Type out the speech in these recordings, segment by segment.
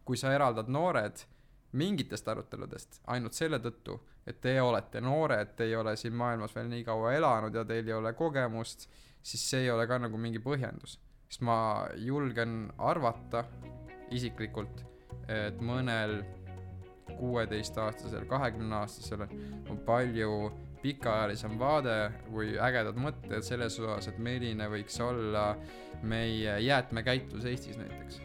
kui sa eraldad noored mingitest aruteludest ainult selle tõttu, et te olete noored, te ei ole siin maailmas veel nii kaua elanud ja teil ei ole kogemust, siis see ei ole ka nagu mingi põhjendus. Sest ma julgen arvata isiklikult, et mõnel 16-aastasel, 20-aastasel on palju pikaajalisem vaade või ägedad mõtted selles osas, et milline võiks olla meie jäätmekäitlus Eestis näiteks.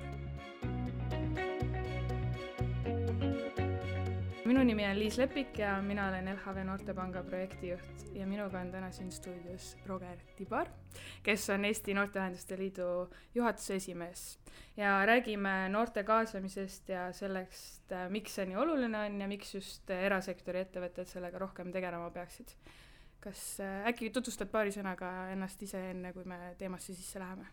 Minu nimi on Liis Lepik ja mina olen LHV Noortepanga projektijuht ja minuga on täna siin stuudios Roger Tibar, kes on Eesti Noorteühenduste Liidu juhatuse esimees. Ja räägime noorte kaasamisest ja sellest, miks see nii oluline on ja miks just erasektori ettevõtted sellega rohkem tegelema peaksid. Kas äkki tutvustad paari sõnaga ennast ise enne, kui me teemasse sisse läheme?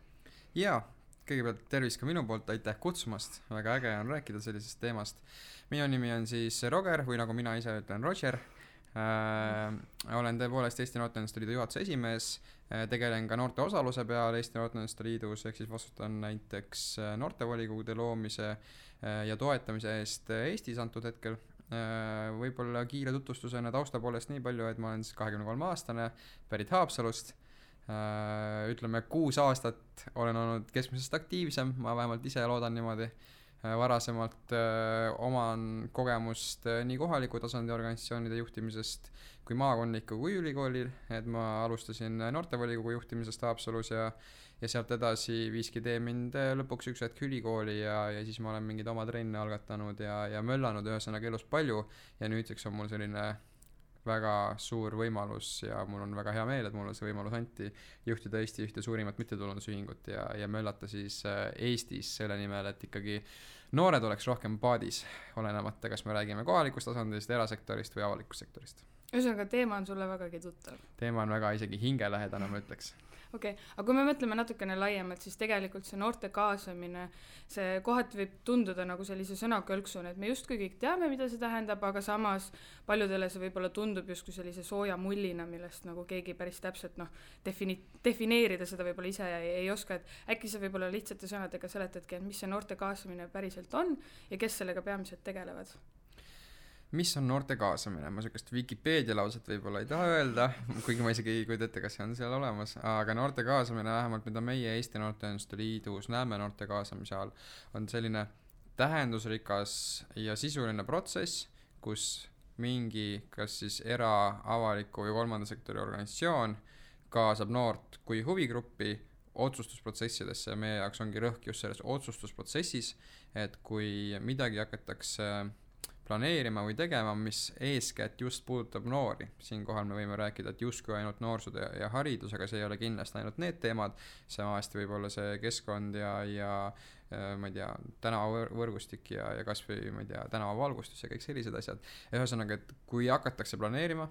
Jaa, kõigepealt tervis ka minu poolt, aitäh kutsumast, väga äge on rääkida sellisest teemast. Minu nimi on siis Roger või nagu mina ise ütlen Roger. Olen tõepoolest Eesti Noorteühenduste Liidu juhatuse esimees, tegelen ka noorte osaluse peal Eesti Noorteühenduste Liidus, ehk siis vastutan näiteks noortevolikogude loomise ja toetamise eest Eestis antud hetkel. Võib-olla kiire tutvustusena tausta poolest nii palju, et ma olen siis 23-aastane, pärit Haapsalust. Ütleme 6 aastat olen olnud keskmisest aktiivsem, ma vähemalt ise loodan niimoodi. Varasemalt oman kogemust nii kohaliku tasandi organisatsioonide juhtimisest kui maakondliku kui ülikoolil, et ma alustasin noortevolikogu juhtimisest Haapsalus ja sealt edasi viiski tee mind lõpuks üks hetk ülikooli ja siis ma olen mingid oma trenne algatanud ja möllanud ühesõnaga elus palju ja nüüdseks on mul selline väga suur võimalus ja mul on väga hea meel, et mulle see võimalus anti juhtida Eesti ühte suurimat mittetulundusühingut ja möllata siis Eestis selle nimel, et ikkagi noored oleks rohkem paadis, olenemata, kas me räägime kohalikust tasandist, erasektorist või avalikust sektorist. Ühesõnaga, teema on sulle vägagi tuttav. Teema on väga isegi hingelähedane, ma ütleks. Okei, aga kui me mõtleme natukene laiemalt, siis tegelikult see noorte kaasamine, see kohati võib tunduda nagu sellise sõnakõlksuna, et me justkui kõik teame, mida see tähendab, aga samas paljudele see võib-olla tundub justkui sellise sooja mullina, millest nagu keegi päris täpselt defineerida seda võib-olla ise ei oska, et äkki see võib-olla lihtsate sõnadega seletadki, et mis see noorte kaasamine päriselt on ja kes sellega peamiselt tegelevad? Mis on noorte kaasamine? Ma sellist Wikipedia lauset võib-olla ei taha öelda, kuigi ma isegi ei kujuta ette, kas see on seal olemas, aga noorte kaasamine vähemalt, mida meie Eesti Noorteühenduste Liidus näeme noorte kaasamise all, on selline tähendusrikas ja sisuline protsess, kus mingi kas siis avaliku või kolmanda sektori organisatsioon kaasab noort kui huvigruppi otsustusprotsessidesse ja meie jaoks ongi rõhk just selles otsustusprotsessis, et kui midagi hakatakse planeerima või tegema, mis eeskätt just puudutab noori. Siinkohal me võime rääkida, et justkui ainult noorsud ja haridus, aga see ei ole kindlasti ainult need teemad. Samasti võib olla see keskkond ja ma ei tea, tänavavõrgustik ja kas või ma ei tea, tänavavalgustus ja kõik sellised asjad. Ühesõnaga, et kui hakatakse planeerima,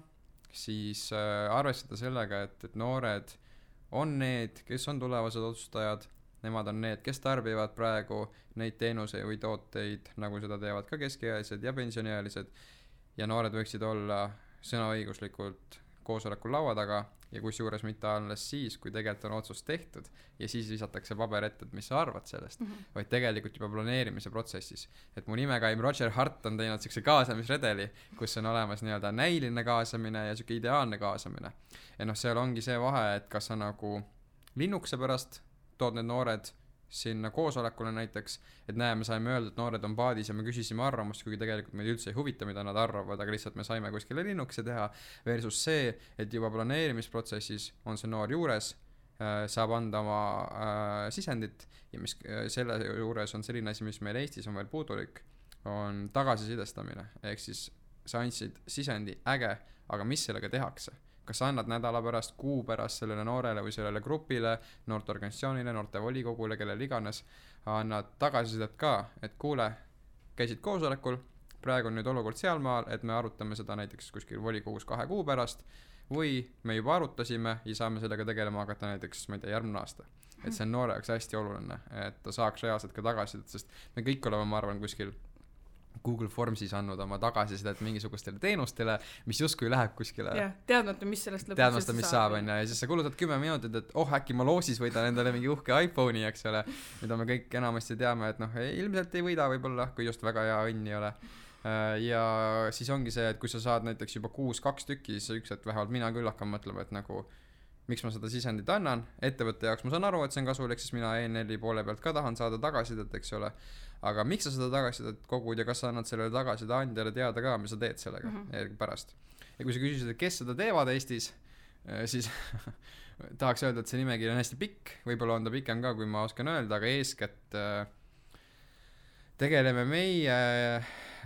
siis arvestada sellega, et noored on need, kes on tulevased otsustajad. Nemad on need, kes tarbivad praegu neid teenuseid või tooteid, nagu seda teevad ka keskealised ja pensioniealised. Ja noored võiksid olla sõnaõiguslikult koosolekul laua taga ja kusjuures mitte alles siis, kui tegelikult on otsus tehtud ja siis visatakse paber ette, et mis sa arvad sellest, vaid tegelikult juba planeerimise protsessis. Et mu nimekaim Roger Hart on teinud sellise kaasamisredeli, kus on olemas nii-öelda näiline kaasamine ja selline ideaalne kaasamine. Ja seal ongi see vahe, et kas sa nagu linnukese pärast tood need noored sinna koosolekule näiteks, et me saime öelda, et noored on paadis ja me küsisime arvamust, kuigi tegelikult meid üldse ei huvita, mida nad arvavad, aga lihtsalt me saime kuskile linnukese teha, versus see, et juba planeerimisprotsessis on see noor juures, saab anda oma sisendit ja mis selle juures on selline asi, mis meil Eestis on veel puudulik, on tagasisidestamine, ehk siis sa andsid sisendi äge, aga mis sellega tehakse? Kas sa annad nädala pärast, kuu pärast sellele noorele või sellele grupile, noorteorganisatsioonile, noortevolikogule, kellele iganes, annad tagasisidet ka, et kuule, käisid koosolekul, praegu on nüüd olukord sealmaal, et me arutame seda näiteks kuskil volikogus 2 kuu pärast, või me juba arutasime ja saame sellega tegelema hakata näiteks, ma ei tea, järgmine aasta. Et see on noore jaoks hästi oluline, et ta saaks reaalselt ka tagasisidet, sest me kõik oleme, ma arvan, kuskil Google Formsis andnud oma tagasisidet mingisugustele teenustele, mis justkui läheb kuskile. Jah, teadmata, mis sellest lõpuks teadmata, mis saab, ja siis sa kulutad 10 minutit, et äkki ma loosis võidan endale mingi uhke iPhone'i, eks ole, mida me kõik enamasti teame, et ilmselt ei võida võib-olla, kui just väga hea õnn ei ole. Ja siis ongi see, et kui sa saad näiteks juba 6-2 tükki, siis üks, et vähemalt mina küll hakkan mõtlema, et nagu miks ma seda sisendit annan, ettevõtte jaoks ma saan aru, et see on kasulik, siis mina ENL-i poole pealt ka tahan saada tagasisidet, eks ole. Aga miks sa seda tagasisidet kogud ja kas sa annad sellele tagasiside andjale teada ka, mis sa teed sellega pärast. Ja kui sa küsisid, et kes seda teevad Eestis, siis tahaks öelda, et see nimekiri on hästi pikk, võib-olla on ta pikem ka, kui ma oskan öelda, aga eeskätt tegeleme meie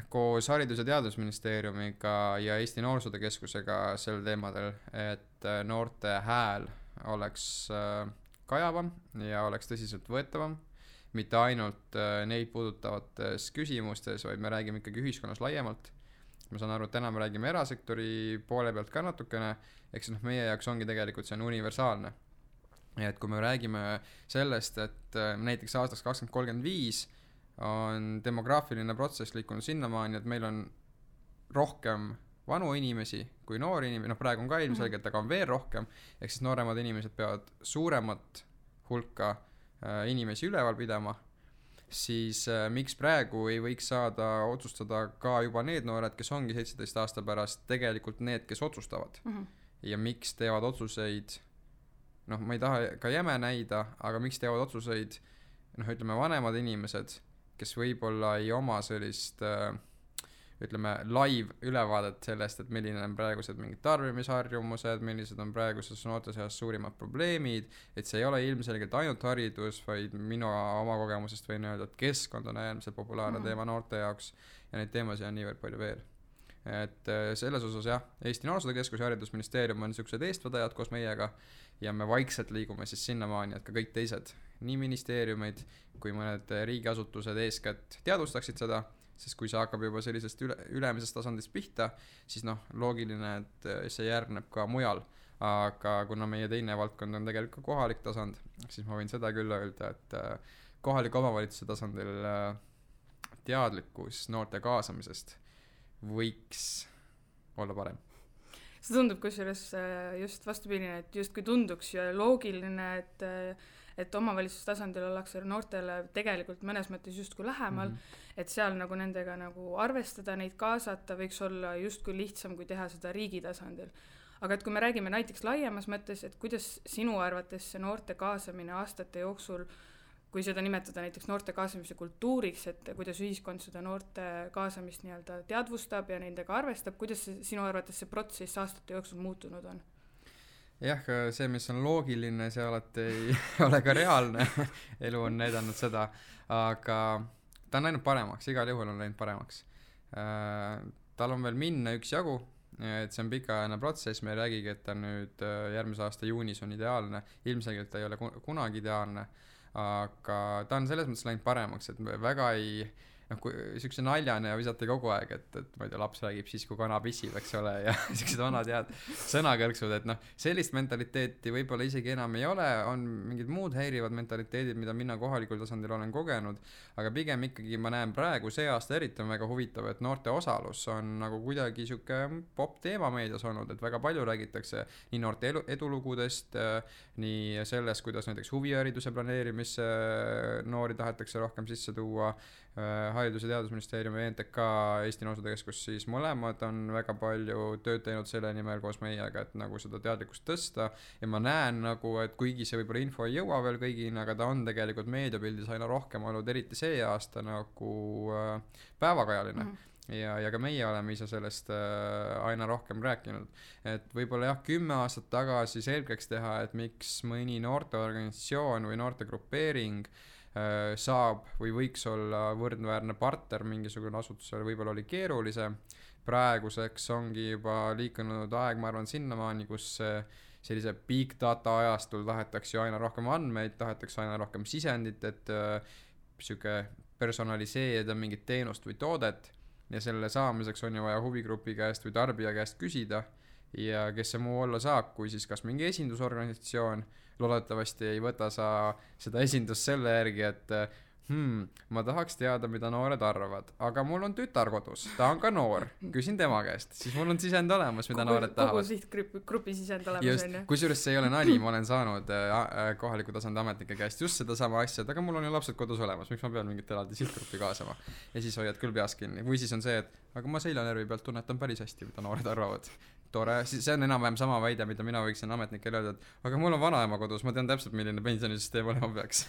koos Haridus- ja Teadusministeeriumiga ja Eesti Noorsootöö Keskusega sel teemadel, et noorte hääl oleks kajavam ja oleks tõsiselt võetavam, mitte ainult neid puudutavates küsimustes, vaid me räägime ikkagi ühiskonnas laiemalt. Ma saan aru, et täna me räägime erasektori poole pealt ka natukene, eks meie jaoks ongi tegelikult see on universaalne. Ja et kui me räägime sellest, et näiteks aastaks 2035 on demograafiline protsess liikunud sinnamaani, et meil on rohkem vanu inimesi kui noori inimesi, praegu on ka ilmselgelt, aga on veel rohkem, ehk siis nooremad inimesed peavad suuremat hulka inimesi üleval pidama, siis miks praegu ei võiks saada otsustada ka juba need noored, kes ongi 17 aasta pärast tegelikult need, kes otsustavad. Ja miks teevad otsuseid, ma ei taha ka jäme näida, aga miks teevad otsuseid, ütleme vanemad inimesed, kes võib-olla ei oma sellist ütleme live ülevaadet sellest, et milline on praegused mingid tarbimisharjumused, millised on praeguses noorte seas suurimad probleemid, et see ei ole ilmselgelt ainult haridus, vaid minu oma kogemusest võin öelda, et keskkond on äärmiselt populaarne teema noorte jaoks ja neid teemasid on niivõrd palju veel. Et selles osas jah, Eesti Noorsootöö Keskus ja Haridusministeerium on niisugused eestvedajad koos meiega ja me vaikselt liigume siis sinnamaani, et ka kõik teised, nii ministeeriumid kui mõned riigiasutused eeskätt teadvustaksid seda, sest kui see hakkab juba sellisest ülemisest tasandist pihta, siis loogiline, et see järgneb ka mujal. Aga kuna meie teine valdkond on tegelikult kohalik tasand, siis ma võin seda küll öelda, et kohaliku omavalitsuse tasandil teadlikkus noorte kaasamisest võiks olla parem. See tundub kusjuures just vastupidine, et justkui tunduks ja loogiline, et omavalitsuse tasandil ollakse noortele tegelikult mõnes mõttes justkui lähemal, et seal nagu nendega nagu arvestada, neid kaasata võiks olla justkui lihtsam, kui teha seda riigi tasandil. Aga et kui me räägime näiteks laiemas mõttes, et kuidas sinu arvates see noorte kaasamine aastate jooksul, kui seda nimetada näiteks noorte kaasamise kultuuriks, et kuidas ühiskond seda noorte kaasamist nii-öelda teadvustab ja nendega arvestab, kuidas sinu arvates see protsess aastate jooksul muutunud on? Jah, see, mis on loogiline, see alati ei ole ka reaalne. Elu on näidanud seda, aga ta on läinud paremaks, igal juhul on läinud paremaks. Tal on veel minna üks jagu, et see on pikaajaline protsess, me ei räägigi, et ta nüüd järgmise aasta juunis on ideaalne, ilmselgelt ta ei ole kunagi ideaalne, aga ta on selles mõttes läinud paremaks, et väga ei kui siukse naljane ja visati kogu aeg, et ma ei tea, laps räägib siis, kui kana pissib, eks ole, ja siuksed vanad head sõnakõlksud, et sellist mentaliteeti võib-olla isegi enam ei ole, on mingid muud häirivad mentaliteedid, mida mina kohalikul tasandil olen kogenud, aga pigem ikkagi ma näen praegu see aasta eriti on väga huvitav, et noorte osalus on nagu kuidagi siuke pop teema meedias olnud, et väga palju räägitakse nii noorte edulugudest, nii sellest, kuidas näiteks huvihariduse planeerimisse noori tahetakse rohkem sisse tuua, Haridus- ja Teadusministeerium ja NTK Eesti Noorsootöö Keskus, siis mõlemad on väga palju tööd teinud selle nimel koos meiega, et nagu seda teadlikkust tõsta ja ma näen nagu, et kuigi see võib-olla info ei jõua veel kõigini, aga ta on tegelikult meediapildis aina rohkem olnud, eriti see aasta nagu päevakajaline. Ja ka meie oleme ise sellest aina rohkem rääkinud, et võib-olla jah, 10 aastat tagasi selgeks teha, et miks mõni noorteorganisatsioon või noortegrupeering saab või võiks olla võrdväärne partner mingisugune asutusele, võib-olla oli keerulisem. Praeguseks ongi juba liikunud aeg, ma arvan, sinnamaani, kus sellise big data ajastul tahetakse ju aina rohkem andmeid, tahetakse aina rohkem sisendit, et siuke personaliseerida mingit teenust või toodet ja selle saamiseks on ju vaja huvigrupi käest või tarbija käest küsida ja kes see muu olla saab, kui siis kas mingi esindusorganisatsioon, loodetavasti ei võta sa seda esindust selle järgi, et ma tahaks teada, mida noored arvavad, aga mul on tütar kodus, ta on ka noor, küsin tema käest, siis mul on sisend olemas, mida noored tahavad. Kogu sihtgrupi sisend olemas on ju. Kusjuures see ei ole nali, ma olen saanud kohaliku tasandi ametnike käest just seda sama asja, et aga mul on ju lapsed kodus olemas, miks ma pean mingit eraldi sihtgruppi kaasama. Ja siis hoiad küll peas kinni. Või siis on see, et aga ma seljanärvi pealt tunnetan päris hästi, mida noored arvavad. Tore, see on enam-vähem sama väide, mida mina võiksin ametnikele öelda, et aga mul on vanaema kodus, ma tean täpselt, milline pensionisüsteem olema peaks.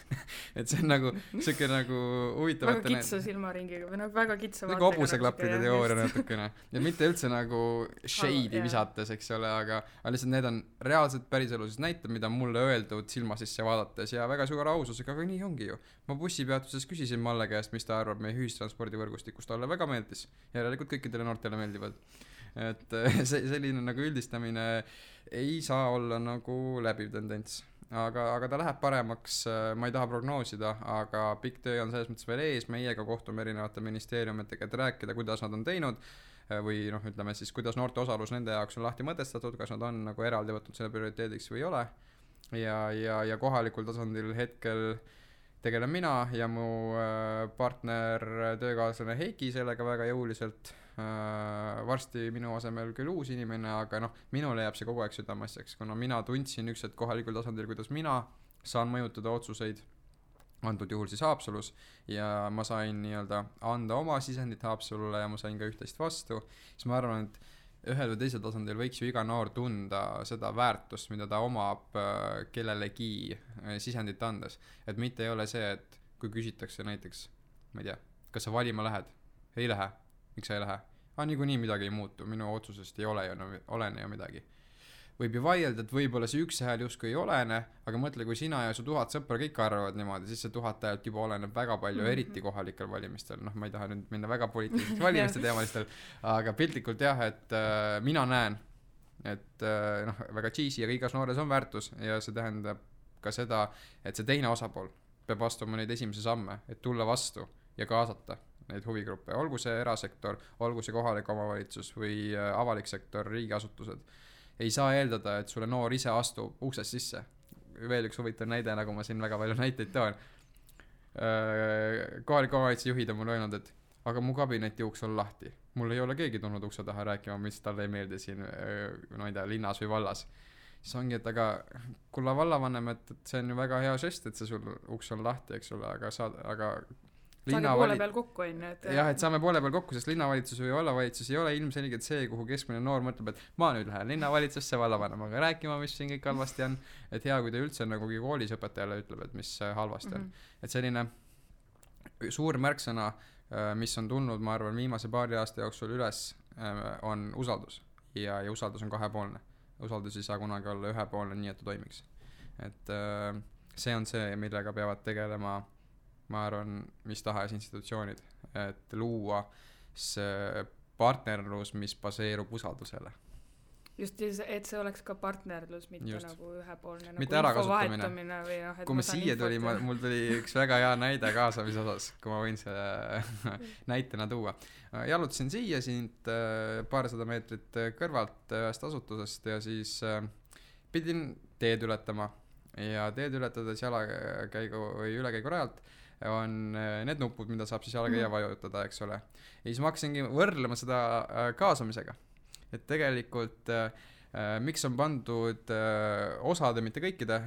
Et see on nagu siuke nagu huvitav. Väga kitsa silmaringiga või nagu väga kitsa vaatega. Nagu hobuseklappide teooria natukene. Ja mitte üldse nagu shade'i visates, eks ole, aga lihtsalt need on reaalselt päriseluses näited, mida mulle öeldud silma sisse vaadates ja väga suure aususega, aga nii ongi ju. Ma bussipeatuses küsisin Malle käest, mis ta arvab meie ühistranspordivõrgustikust, talle väga meeldis. Järelikult kõikidele noortele meeldivad. Et selline nagu üldistamine ei saa olla nagu läbiv tendents, aga ta läheb paremaks, ma ei taha prognoosida, aga pikk töö on selles mõttes veel ees, meiega kohtume erinevate ministeeriumitega, et rääkida, kuidas nad on teinud või noh, ütleme siis, kuidas noorte osalus nende jaoks on lahti mõtestatud, kas nad on nagu eraldi võtnud selle prioriteediks või ei ole ja kohalikul tasandil hetkel tegelen mina ja mu partner, töökaaslane Heiki sellega väga jõuliselt. Varsti minu asemel küll uus inimene, aga noh, minule jääb see kogu aeg südamasjaks, kuna mina tundsin üks hetk kohalikul tasandil, kuidas mina saan mõjutada otsuseid, antud juhul siis Haapsalus, ja ma sain nii-öelda anda oma sisendit Haapsalule ja ma sain ka üht-teist vastu, siis ma arvan, et ühel või teisel tasandil võiks ju iga noor tunda seda väärtust, mida ta omab kellelegi sisendit andes, et mitte ei ole see, et kui küsitakse näiteks, ma ei tea, kas sa valima lähed? Ei lähe. Miks sa ei lähe? Niikuinii midagi ei muutu, minu otsusest ei olene ju midagi. Võib ju vaielda, et võib-olla see üks hääl justkui ei olene, aga mõtle, kui sina ja su 1000 sõpra kõik arvavad niimoodi, siis see 1000 häält juba oleneb väga palju, eriti kohalikel valimistel. Noh, ma ei taha nüüd minna väga poliitiliseks valimiste teemalistel, aga piltlikult jah, et mina näen, et noh, väga cheesy, aga igas noores on väärtus ja see tähendab ka seda, et see teine osapool peab astuma neid esimese samme, et tulla vastu ja kaasata neid huvigruppe, olgu see erasektor, olgu see kohalik omavalitsus või avalik sektor, riigiasutused. Ei saa eeldada, et sulle noor ise astub uksest sisse. Veel üks huvitav näide, nagu ma siin väga palju näiteid toon. Kohalik omavalitsuse juhid on mulle öelnud, et aga mu kabineti uks on lahti. Mul ei ole keegi tulnud ukse taha rääkima, mis talle ei meeldi siin, no ei tea, linnas või vallas. Siis ongi, et aga kulla vallavanem, et see on ju väga hea žest, et see sul uks on lahti, eks ole, aga saage poole peal kokku on, jah, et saame poole peal kokku, sest linnavalitsus või vallavalitsus ei ole ilmselgelt see, kuhu keskmine noor mõtleb, et ma nüüd lähen linnavalitsusse vallavanemaga rääkima, mis siin kõik halvasti on, et hea, kui ta üldse nagu koolis õpetajale ütleb, et mis halvasti on. Et selline suur märksõna, mis on tulnud, ma arvan, viimase paari aasta jooksul üles, on usaldus ja usaldus on kahepoolne. Usaldus ei saa kunagi olla ühepoolne, nii et ta toimiks. Et see on see, millega peavad tegelema ma arvan, mis tahes institutsioonid, et luua see partnerlus, mis baseerub usaldusele. Just, et see oleks ka partnerlus, mitte just. Nagu ühepoolne mitte nagu ärakasutamine. Või kui ma siia tuli, mul tuli üks väga hea näide kaasamise osas, kui ma võin selle näitena tuua. Jalutasin siia siit paarsada meetrit kõrvalt ühest asutusest ja siis pidin teed ületama ja teed ületades jalakäigu või ülekäigu rajalt on need nupud, mida saab siis jalakäija vajutada, eks ole. Ja siis ma hakkasingi võrdlema seda kaasamisega. Et tegelikult miks on pandud osade, mitte kõikide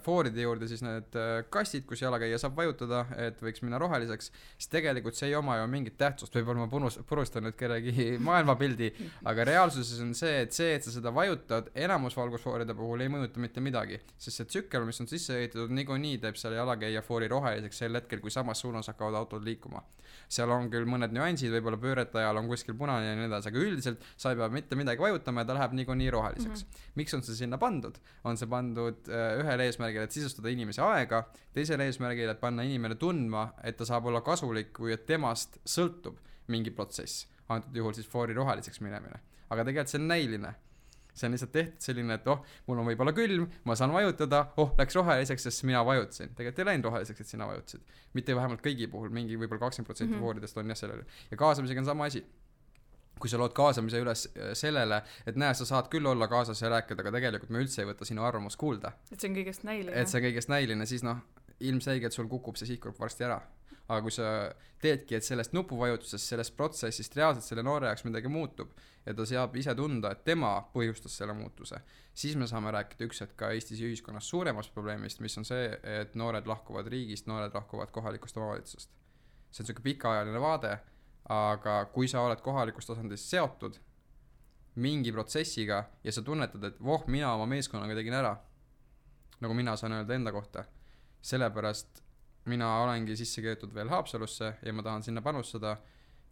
fooride juurde siis need kastid, kus jalakäija saab vajutada, et võiks minna roheliseks, siis tegelikult see ei oma ju mingit tähtsust, võib-olla ma purustan nüüd kellegi maailmapildi, aga reaalsuses on see, et sa seda vajutad, enamus valgusfooride puhul ei mõjuta mitte midagi, sest see tsükkel, mis on sisse ehitatud, niikuinii teeb selle jalakäija foori roheliseks sel hetkel, kui samas suunas hakkavad autod liikuma. Seal on küll mõned nüansid, võib-olla pöörete ajal on kuskil punane ja nii edasi, aga üldiselt sa ei pea mitte midagi vajutama ja ta läheb niikuinii roheliseks. Miks on see sinna pandud? On see pandud ühel eesmärgil, et sisustada inimese aega, teisel eesmärgil, et panna inimene tundma, et ta saab olla kasulik või et temast sõltub mingi protsess. Antud juhul siis foori roheliseks minemine. Aga tegelikult see on näiline. See on lihtsalt tehtud selline, et mul on võib-olla külm, ma saan vajutada, läks roheliseks, sest mina vajutasin. Tegelikult ei läinud roheliseks, et sina vajutasid. Mitte vähemalt kõigi puhul, mingi võib-olla 20% fooridest on jah sellele. Ja kaasamisega on sama asi. Kui sa lood kaasamise üles sellele, et näe, sa saad küll olla kaasas ja rääkida, aga tegelikult me üldse ei võta sinu arvamus kuulda. Et see on kõigest näiline. Et see on kõigest näiline, siis ilmselgelt sul kukub see sihtgrupp varsti ära. Aga kui sa teedki, et sellest nupuvajutusest, sellest protsessist reaalselt selle noore jaoks midagi muutub ja ta saab ise tunda, et tema põhjustas selle muutuse, siis me saame rääkida üks hetk ka Eestis ühiskonnas suuremast probleemist, mis on see, et noored lahkuvad riigist, noored lahkuvad kohalikust omavalitsusest. See on selline pikaajaline vaade, aga kui sa oled kohalikust tasandist seotud mingi protsessiga ja sa tunnetad, et mina oma meeskonnaga tegin ära, nagu mina saan öelda enda kohta, sellepärast mina olengi sisse keetud veel Haapsalusse ja ma tahan sinna panustada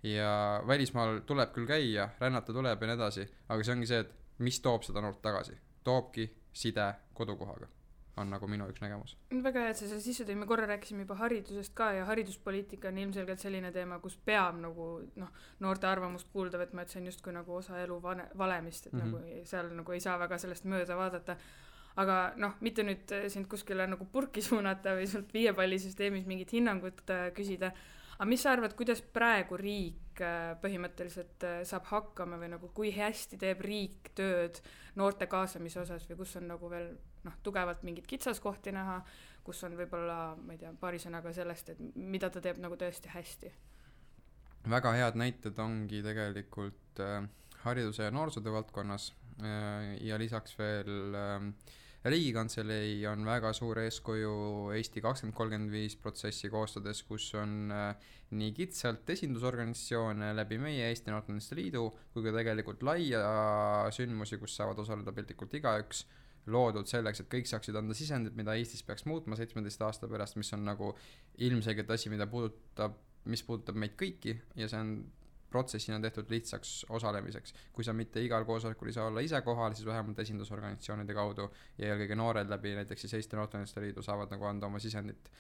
ja välismaal tuleb küll käia, rännata tuleb ja nii edasi, aga see ongi see, et mis toob seda noort tagasi. Toobki side kodukohaga, on nagu minu üks nägemus. Väga hea, et sa sisse tõi, me korra rääkisime juba haridusest ka ja hariduspoliitika on ilmselgelt selline teema, kus peab nagu noorte arvamust kuulda võtma, et see on justkui nagu osa elu valemist, et nagu seal nagu ei saa väga sellest mööda vaadata. Aga mitte nüüd sind kuskile nagu purki suunata või sult viiepallisüsteemis mingit hinnangut küsida, aga mis sa arvad, kuidas praegu riik põhimõtteliselt saab hakkama või nagu kui hästi teeb riik tööd noorte kaasamise osas või kus on nagu veel tugevalt mingid kitsaskohti näha, kus on võib-olla, ma ei tea, paari sõnaga sellest, et mida ta teeb nagu tõesti hästi? Väga head näited ongi tegelikult hariduse ja noorsootöö valdkonnas ja lisaks veel Riigikantselei on väga suur eeskuju Eesti 2035 protsessi koostades, kus on nii kitsalt esindusorganisatsioone läbi meie Eesti Noorteühenduste Liidu kui ka tegelikult laia sündmusi, kus saavad osaleda piltlikult igaüks, loodud selleks, et kõik saaksid anda sisendit, mida Eestis peaks muutma 17 aasta pärast, mis on nagu ilmselgelt asi, mis puudutab meid kõiki ja see on protsessina tehtud lihtsaks osalemiseks. Kui sa mitte igal koosolekul ei saa olla ise kohal, siis vähemalt esindusorganisatsioonide kaudu ja eelkõige noored läbi näiteks siis Eesti Noorteühenduste Liidu saavad nagu anda oma sisendit.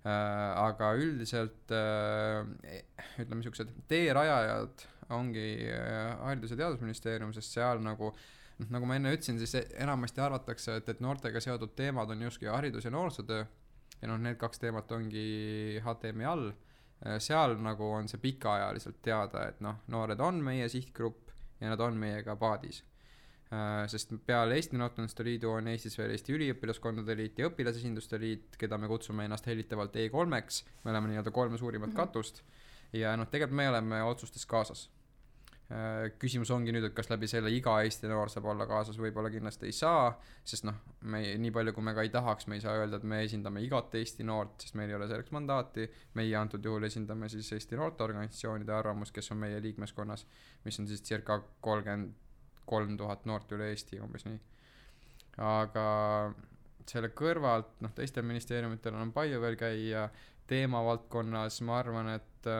Aga üldiselt ütleme niisugused teerajajad ongi Haridus- ja Teadusministeerium, sest seal nagu ma enne ütlesin, siis enamasti arvatakse, et noortega seotud teemad on justkui haridus- ja noorsootöö ja need kaks teemat ongi HTM-i all. Seal nagu on see pikaajaliselt teada, et noored on meie sihtgrupp ja nad on meiega paadis. Sest peale Eesti Noorteühenduste Liidu on Eestis veel Eesti Üliõpilaskondade Liit ja Õpilasesinduste Liit, keda me kutsume ennast hellitavalt E3-ks, me oleme nii-öelda 3 suurimat katust ja tegelikult me oleme otsustes kaasas. Küsimus ongi nüüd, et kas läbi selle iga Eesti noor saab olla kaasas, võib-olla kindlasti ei saa, sest me nii palju kui me ka ei tahaks, me ei saa öelda, et me esindame igat Eesti noort, sest meil ei ole selleks mandaati, meie antud juhul esindame siis Eesti noorteorganisatsioonide arvamust, kes on meie liikmeskonnas, mis on siis circa 33 000 noort üle Eesti, umbes nii. Aga selle kõrvalt, teistel ministeeriumitel on palju veel käia teemavaldkonnas, ma arvan, et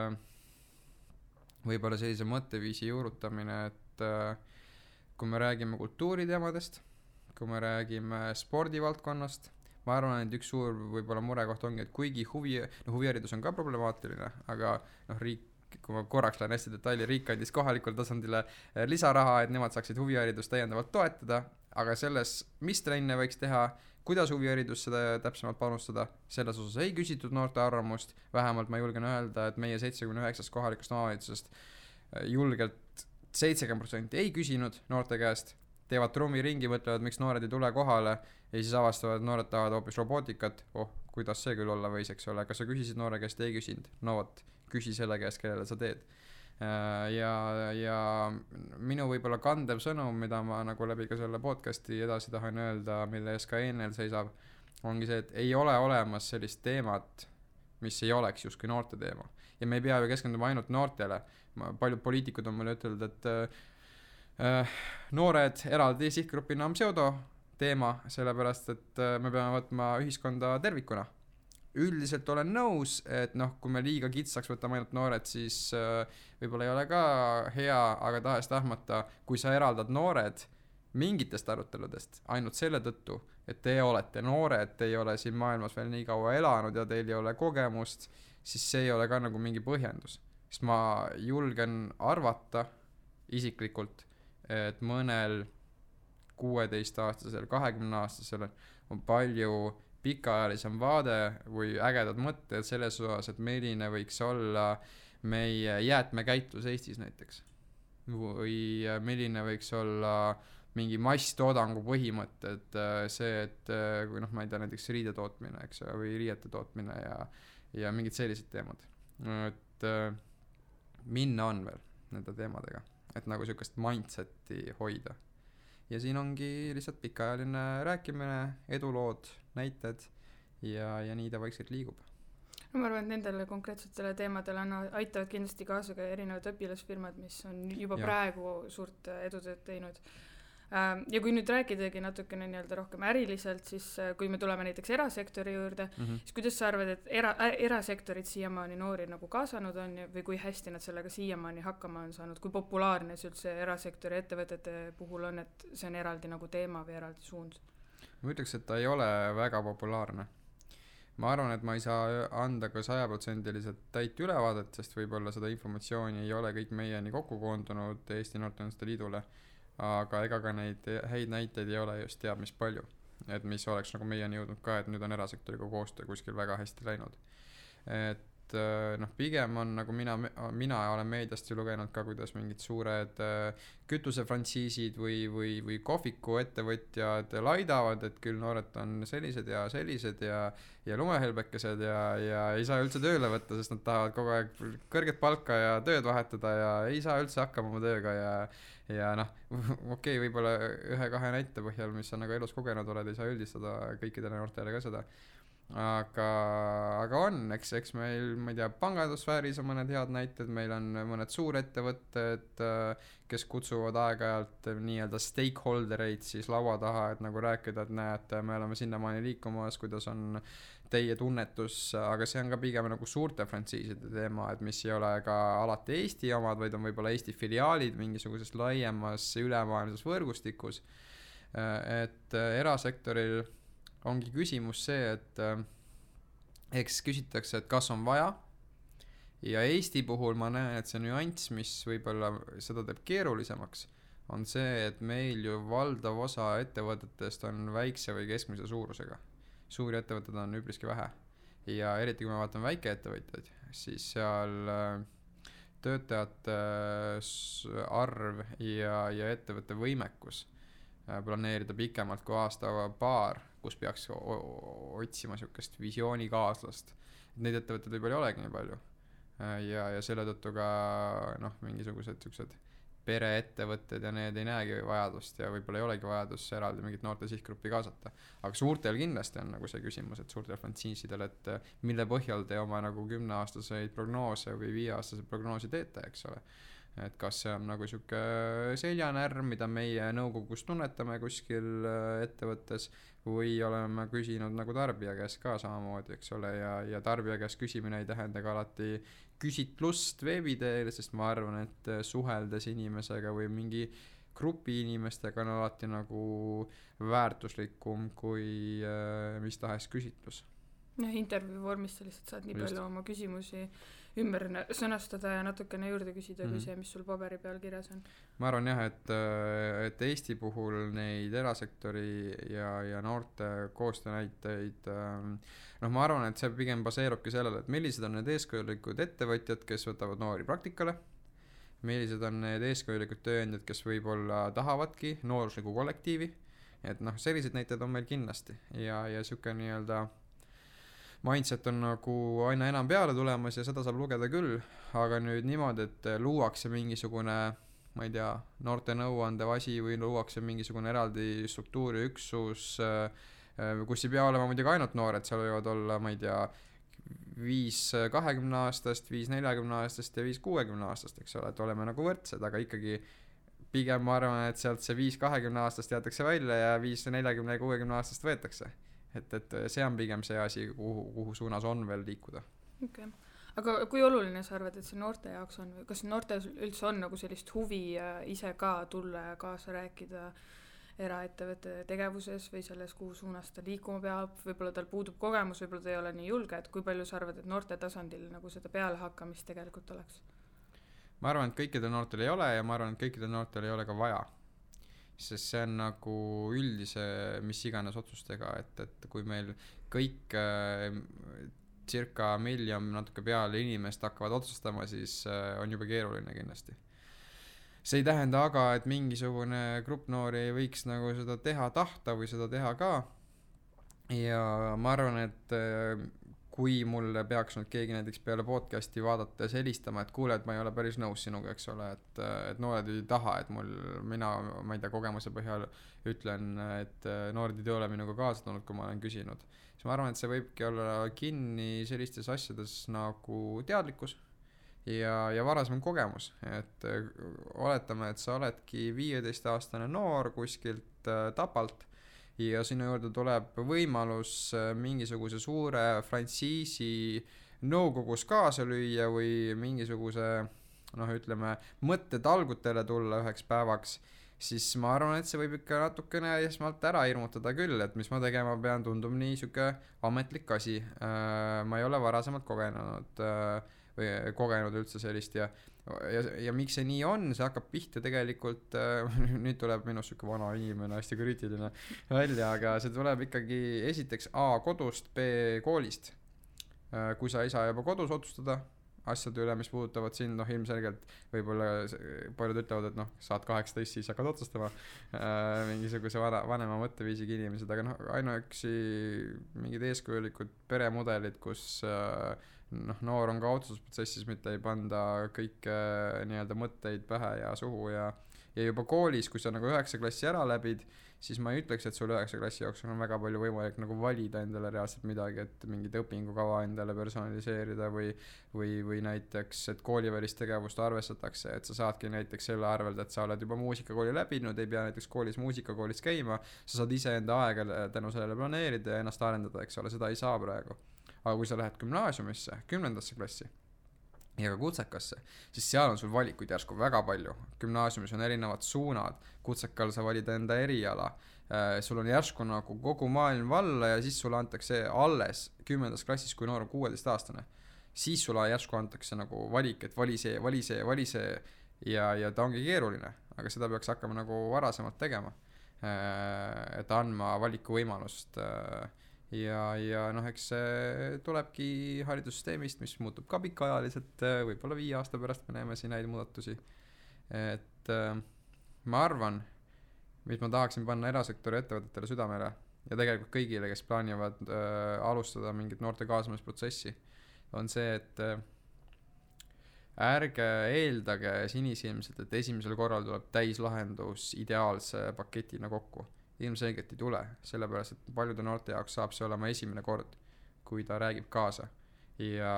võib-olla sellise mõtteviisi juurutamine, et kui me räägime kultuuriteemadest, kui me räägime spordivaldkonnast, ma arvan, et üks suur võib-olla murekoht ongi, et kuigi huviharidus on ka problemaatiline, aga riik, kui ma korraks lähen hästi detaili, riik andis kohalikul tasandile lisaraha, et nemad saaksid huviharidust täiendavalt toetada, aga selles, mis trenne võiks teha, kuidas huviharidus seda täpsemalt panustada, selles osas ei küsitud noorte arvamust, vähemalt ma julgen öelda, et meie 79 kohalikust omavalitsusest julgelt 70% ei küsinud noorte käest, teevad trummiringi, mõtlevad, miks noored ei tule kohale ja siis avastavad, et noored tahavad hoopis robootikat, kuidas see küll olla võis, eks ole, kas sa küsisid noore käest, ei küsinud, küsi selle käest, kellele sa teed. Ja minu võib-olla kandev sõnum, mida ma nagu läbi ka selle podcasti edasi tahan öelda, mille ees ka ENL seisab, ongi see, et ei ole olemas sellist teemat, mis ei oleks justkui noorte teema. Ja me ei pea ju keskenduma ainult noortele. Paljud poliitikud on mulle ütelnud, et noored eraldi sihtgrupina on pseudo teema, sellepärast, et me peame võtma ühiskonda tervikuna. Üldiselt olen nõus, et kui me liiga kitsaks võtame ainult noored, siis võib-olla ei ole ka hea, aga tahes-tahmata, kui sa eraldad noored mingitest aruteludest ainult selle tõttu, et te olete noored, te ei ole siin maailmas veel nii kaua elanud ja teil ei ole kogemust, siis see ei ole ka nagu mingi põhjendus. Sest ma julgen arvata isiklikult, et mõnel 16-aastasel, 20-aastasel on palju pikaajalisem vaade või ägedad mõtted selles osas, et milline võiks olla meie jäätmekäitlus Eestis näiteks. Või milline võiks olla mingi masstoodangu põhimõtted, see, et kui noh, ma ei tea, näiteks riide tootmine, eks ju, või riiete tootmine ja mingid sellised teemad. Et minna on veel nende teemadega, et nagu sihukest mindseti hoida. Ja siin ongi lihtsalt pikaajaline rääkimine, edulood, näited ja nii ta vaikselt liigub. No ma arvan, et nendele konkreetsetele teemadele aitavad kindlasti kaasa ka erinevad õpilasfirmad, mis on juba praegu suurt edutööd teinud. Ja kui nüüd rääkidagi natukene nii-öelda rohkem äriliselt, siis kui me tuleme näiteks erasektori juurde, siis kuidas sa arvad, et erasektorid siiamaani noori nagu kaasanud on või kui hästi nad sellega siiamaani hakkama on saanud, kui populaarne see üldse erasektori ettevõtete puhul on, et see on eraldi nagu teema või eraldi suund? Ma ütleks, et ta ei ole väga populaarne. Ma arvan, et ma ei saa anda ka 100% täit ülevaadet, sest võib-olla seda informatsiooni ei ole kõik meieni kokku koondunud Eesti Noorteühenduste Liidule, aga ega ka neid häid näiteid ei ole just teab mis palju, et mis oleks nagu meieni jõudnud ka, et nüüd on erasektoriga koostöö kuskil väga hästi läinud. Et noh, pigem on nagu mina olen meediast ju lugenud ka, kuidas mingid suured kütusefrantsiisid või kohviku ettevõtjad laidavad, et küll noored on sellised ja lumehelbekesed ja ei saa üldse tööle võtta, sest nad tahavad kogu aeg kõrget palka ja tööd vahetada ja ei saa üldse hakkama oma tööga ja noh, okei, võib-olla 1-2 näite põhjal, mis sa nagu elus kogenud oled, ei saa üldistada kõikidele noortele ka seda. Aga on, eks meil, ma ei tea, pangandusfääris on mõned head näited, meil on mõned suurettevõtted, kes kutsuvad aeg-ajalt nii-öelda stakeholdereid siis laua taha, et nagu rääkida, et näed, me oleme sinnamaani liikumas, kuidas on teie tunnetus, aga see on ka pigem nagu suurte frantsiiside teema, et mis ei ole ka alati Eesti omad, vaid on võib-olla Eesti filiaalid mingisuguses laiemas ülemaailmses võrgustikus. Et erasektoril ongi küsimus see, et eks küsitakse, et kas on vaja, ja Eesti puhul ma näen, et see nüanss, mis võib-olla seda teeb keerulisemaks, on see, et meil ju valdav osa ettevõtetest on väikse või keskmise suurusega. Suuri ettevõtted on üpriski vähe ja eriti kui me vaatame väikeettevõtjaid, siis seal töötajate arv ja ettevõtte võimekus planeerida pikemalt kui aasta-paar, kus peaks otsima sihukest visioonikaaslast. Neid ettevõtteid võib-olla ei olegi nii palju ja selle tõttu ka noh, mingisugused sihukesed pereettevõtted ja need ei näegi vajadust ja võib-olla ei olegi vajadus eraldi mingit noorte sihtgruppi kaasata. Aga suurtel kindlasti on nagu see küsimus, et suurtel frantsiisidel, et mille põhjal te oma nagu 10-aastaseid prognoose või 5-aastaseid prognoosi teete, eks ole. Et kas see on nagu sihuke seljanärm, mida meie nõukogus tunnetame kuskil ettevõttes või oleme küsinud nagu tarbija käest ka samamoodi, eks ole, ja tarbija käest küsimine ei tähenda ka alati küsitlust veebiteel, sest ma arvan, et suheldes inimesega või mingi grupi inimestega on alati nagu väärtuslikum kui mis tahes küsitlus. Intervjuu vormis sa lihtsalt saad nii palju oma küsimusi ümber sõnastada ja natukene juurde küsida kui see, mis sul paberi peal kirjas on. Ma arvan jah, et Eesti puhul neid erasektori ja noorte koostöönäiteid, ma arvan, et see pigem baseerubki sellele, et millised on need eeskujulikud ettevõtjad, kes võtavad noori praktikale, millised on need eeskujulikud tööandjad, kes võib-olla tahavadki noorusliku kollektiivi, et sellised näited on meil kindlasti ja siuke nii-öelda mindset on nagu aina enam peale tulemas ja seda saab lugeda küll, aga nüüd niimoodi, et luuakse mingisugune, ma ei tea, noorte nõuandev asi või luuakse mingisugune eraldi struktuuriüksus, kus ei pea olema muidugi ainult noored, seal võivad olla, ma ei tea, 5 20-aastast, 5 40-aastast ja 5 60-aastast, eks ole, et oleme nagu võrdsed, aga ikkagi pigem ma arvan, et sealt see 5 20-aastast jäetakse välja ja 5 40 ja 60-aastast võetakse. Et see on pigem see asi, kuhu suunas on veel liikuda. Okay. Aga kui oluline sa arvad, et see noorte jaoks on või kas noortel üldse on nagu sellist huvi ise ka tulla ja kaasa rääkida eraettevõtte tegevuses või selles, kuhu suunas ta liikuma peab, võib-olla tal puudub kogemus, võib-olla ta ei ole nii julge, et kui palju sa arvad, et noorte tasandil nagu seda pealehakkamist tegelikult oleks? Ma arvan, et kõikidel noortel ei ole ja ma arvan, et kõikidel noortel ei ole ka vaja. Sest see on nagu üldise mis iganes otsustega, et kui meil kõik circa 1 miljon natuke peale inimest hakkavad otsustama, siis on juba keeruline kindlasti. see ei tähenda aga, et mingisugune grupp noori ei võiks nagu seda teha tahta või seda teha ka. Ja ma arvan, et kui mulle peaks nüüd keegi näiteks peale podcasti vaadates helistama, et kuule, et ma ei ole päris nõus sinuga, eks ole, et noored ei taha, et ma ei tea, kogemuse põhjal ütlen, et noored ei ole minuga kaasa tulnud, kui ma olen küsinud. Siis ma arvan, et see võibki olla kinni sellistes asjades nagu teadlikkus ja varasem kogemus, et oletame, et sa oledki 15-aastane noor kuskilt Tapalt ja sinu juurde tuleb võimalus mingisuguse suure frantsiisi nõukogus kaasa lüüa või mingisuguse, ütleme, mõttetalgutele tulla üheks päevaks, siis ma arvan, et see võib ikka natukene esmalt ära hirmutada küll, et mis ma tegema pean, tundub nii siuke ametlik asi. Ma ei ole varasemalt kogenud üldse sellist ja miks see nii on, see hakkab pihta tegelikult, nüüd tuleb minu siuke vana inimene hästi kriitiline välja, aga see tuleb ikkagi esiteks A kodust, B koolist. Kui sa ei saa juba kodus otsustada asjade üle, mis puudutavad sind, ilmselgelt võib-olla paljud ütlevad, et saad 18, siis hakkad otsustama mingisuguse vanema mõtteviisiga inimesed, aga ainuüksi mingid eeskujulikud peremudelid, kus noor on ka otsustusprotsessis, mitte ei panda kõike nii-öelda mõtteid pähe ja suhu ja juba koolis, kui sa nagu 9. klassi ära läbid, siis ma ei ütleks, et sul 9. klassi jooksul on väga palju võimalik nagu valida endale reaalselt midagi, et mingit õpingukava endale personaliseerida või näiteks, et koolivälist tegevust arvestatakse, et sa saadki näiteks selle arvelt, et sa oled juba muusikakooli läbinud, ei pea näiteks muusikakoolis käima, sa saad ise enda aega tänu sellele planeerida ja ennast arendada, eks ole, seda ei saa praegu. Aga kui sa lähed gümnaasiumisse, 10. klassi ja ka kutsekasse, siis seal on sul valikuid järsku väga palju. Gümnaasiumis on erinevad suunad, kutsekal sa valid enda eriala, sul on järsku nagu kogu maailm valla ja siis sulle antakse alles 10. klassis, kui noor on 16-aastane. Siis sulle järsku antakse nagu valik, et vali see ja ta ongi keeruline, aga seda peaks hakkama nagu varasemalt tegema, et andma valiku võimalust ja eks see tulebki haridussüsteemist, mis muutub ka pikaajaliselt, võib-olla 5 aasta pärast me näeme siin häid muudatusi, et ma arvan, mis ma tahaksin panna erasektori ettevõtetele südamele ja tegelikult kõigile, kes plaanivad alustada mingit noorte kaasamisprotsessi, on see, et ärge eeldage sinisilmselt, et esimesel korral tuleb täislahendus ideaalse paketina kokku. Ilmselgelt ei tule, sellepärast, et paljude noorte jaoks saab see olema esimene kord, kui ta räägib kaasa. Ja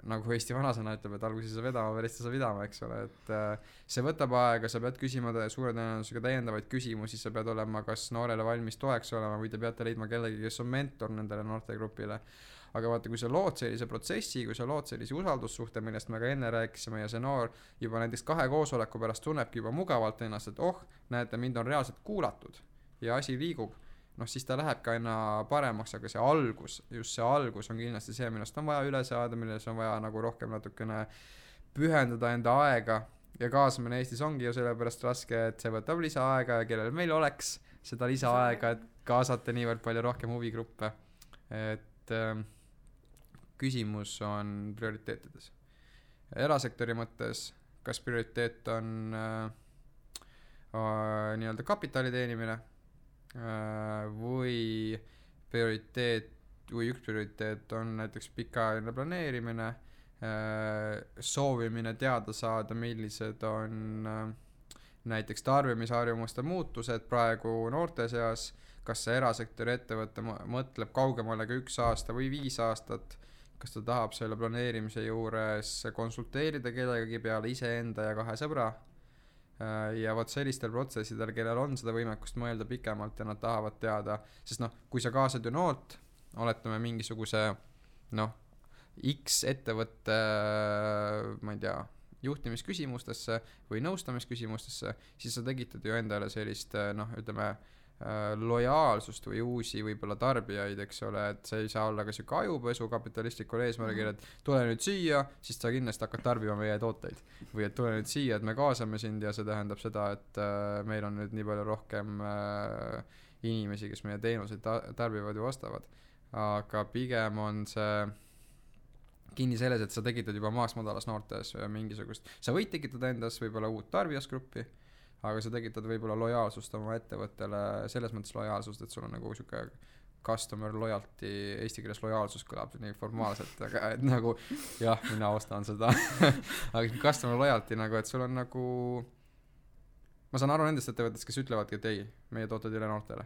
nagu Eesti vanasõna ütleb, et alguses sa vedama, pärast sa vidama, eks ole, et see võtab aega, sa pead küsima suure tõenäosusega täiendavaid küsimusi, sa pead olema kas noorele valmis toeks olema või te peate leidma kellegi, kes on mentor nendele noortegrupile. Aga vaata, kui sa lood sellise protsessi, kui sa lood sellise usaldussuhte, millest me ka enne rääkisime ja see noor juba näiteks 2 koosoleku pärast tunnebki juba mugavalt ennast, et näete, mind on reaalselt kuulatud ja asi liigub, siis ta läheb ka aina paremaks, aga see algus on kindlasti see, millest on vaja üle saada, milles on vaja nagu rohkem natukene pühendada enda aega ja kaasamine Eestis ongi ju sellepärast raske, et see võtab lisaaega ja kellel meil oleks seda lisaaega, et kaasata niivõrd palju rohkem huvigruppe, et küsimus on prioriteetides. Erasektori mõttes, kas prioriteet on nii-öelda kapitali teenimine või üks prioriteet on näiteks pikaajaline planeerimine, soovimine teada saada, millised on näiteks tarbimisharjumuste muutused praegu noorte seas, kas see erasektori ettevõte mõtleb kaugemale kui 1 aasta või 5 aastat, kas ta tahab selle planeerimise juures konsulteerida kellegagi peale iseenda ja 2 sõbra ja vot sellistel protsessidel, kellel on seda võimekust mõelda pikemalt ja nad tahavad teada, sest kui sa kaasad ju noort, oletame mingisuguse X ettevõtte, ma ei tea, juhtimisküsimustesse või nõustamisküsimustesse, siis sa tegitad ju endale sellist, ütleme, lojaalsust või uusi võib-olla tarbijaid, eks ole, et see ei saa olla ka siuke ajupesu kapitalistlikul eesmärgil, et tule nüüd siia, siis sa kindlasti hakkad tarbima meie tooteid või et tule nüüd siia, et me kaasame sind ja see tähendab seda, et meil on nüüd nii palju rohkem inimesi, kes meie teenuseid tarbivad ja ostavad, aga pigem on see kinni selles, et sa tekitad juba maast madalas noortes mingisugust, sa võid tekitada endas võib-olla uut tarbijasgruppi, aga sa tekitad võib-olla lojaalsust oma ettevõttele, selles mõttes lojaalsust, et sul on nagu siuke customer loyalty, eesti keeles lojaalsus kõlab nii formaalselt, aga et nagu jah, mina ostan seda aga customer loyalty nagu, et sul on nagu, ma saan aru nendest ettevõttest, kes ütlevadki, et ei, meie tooted ei ole noortele.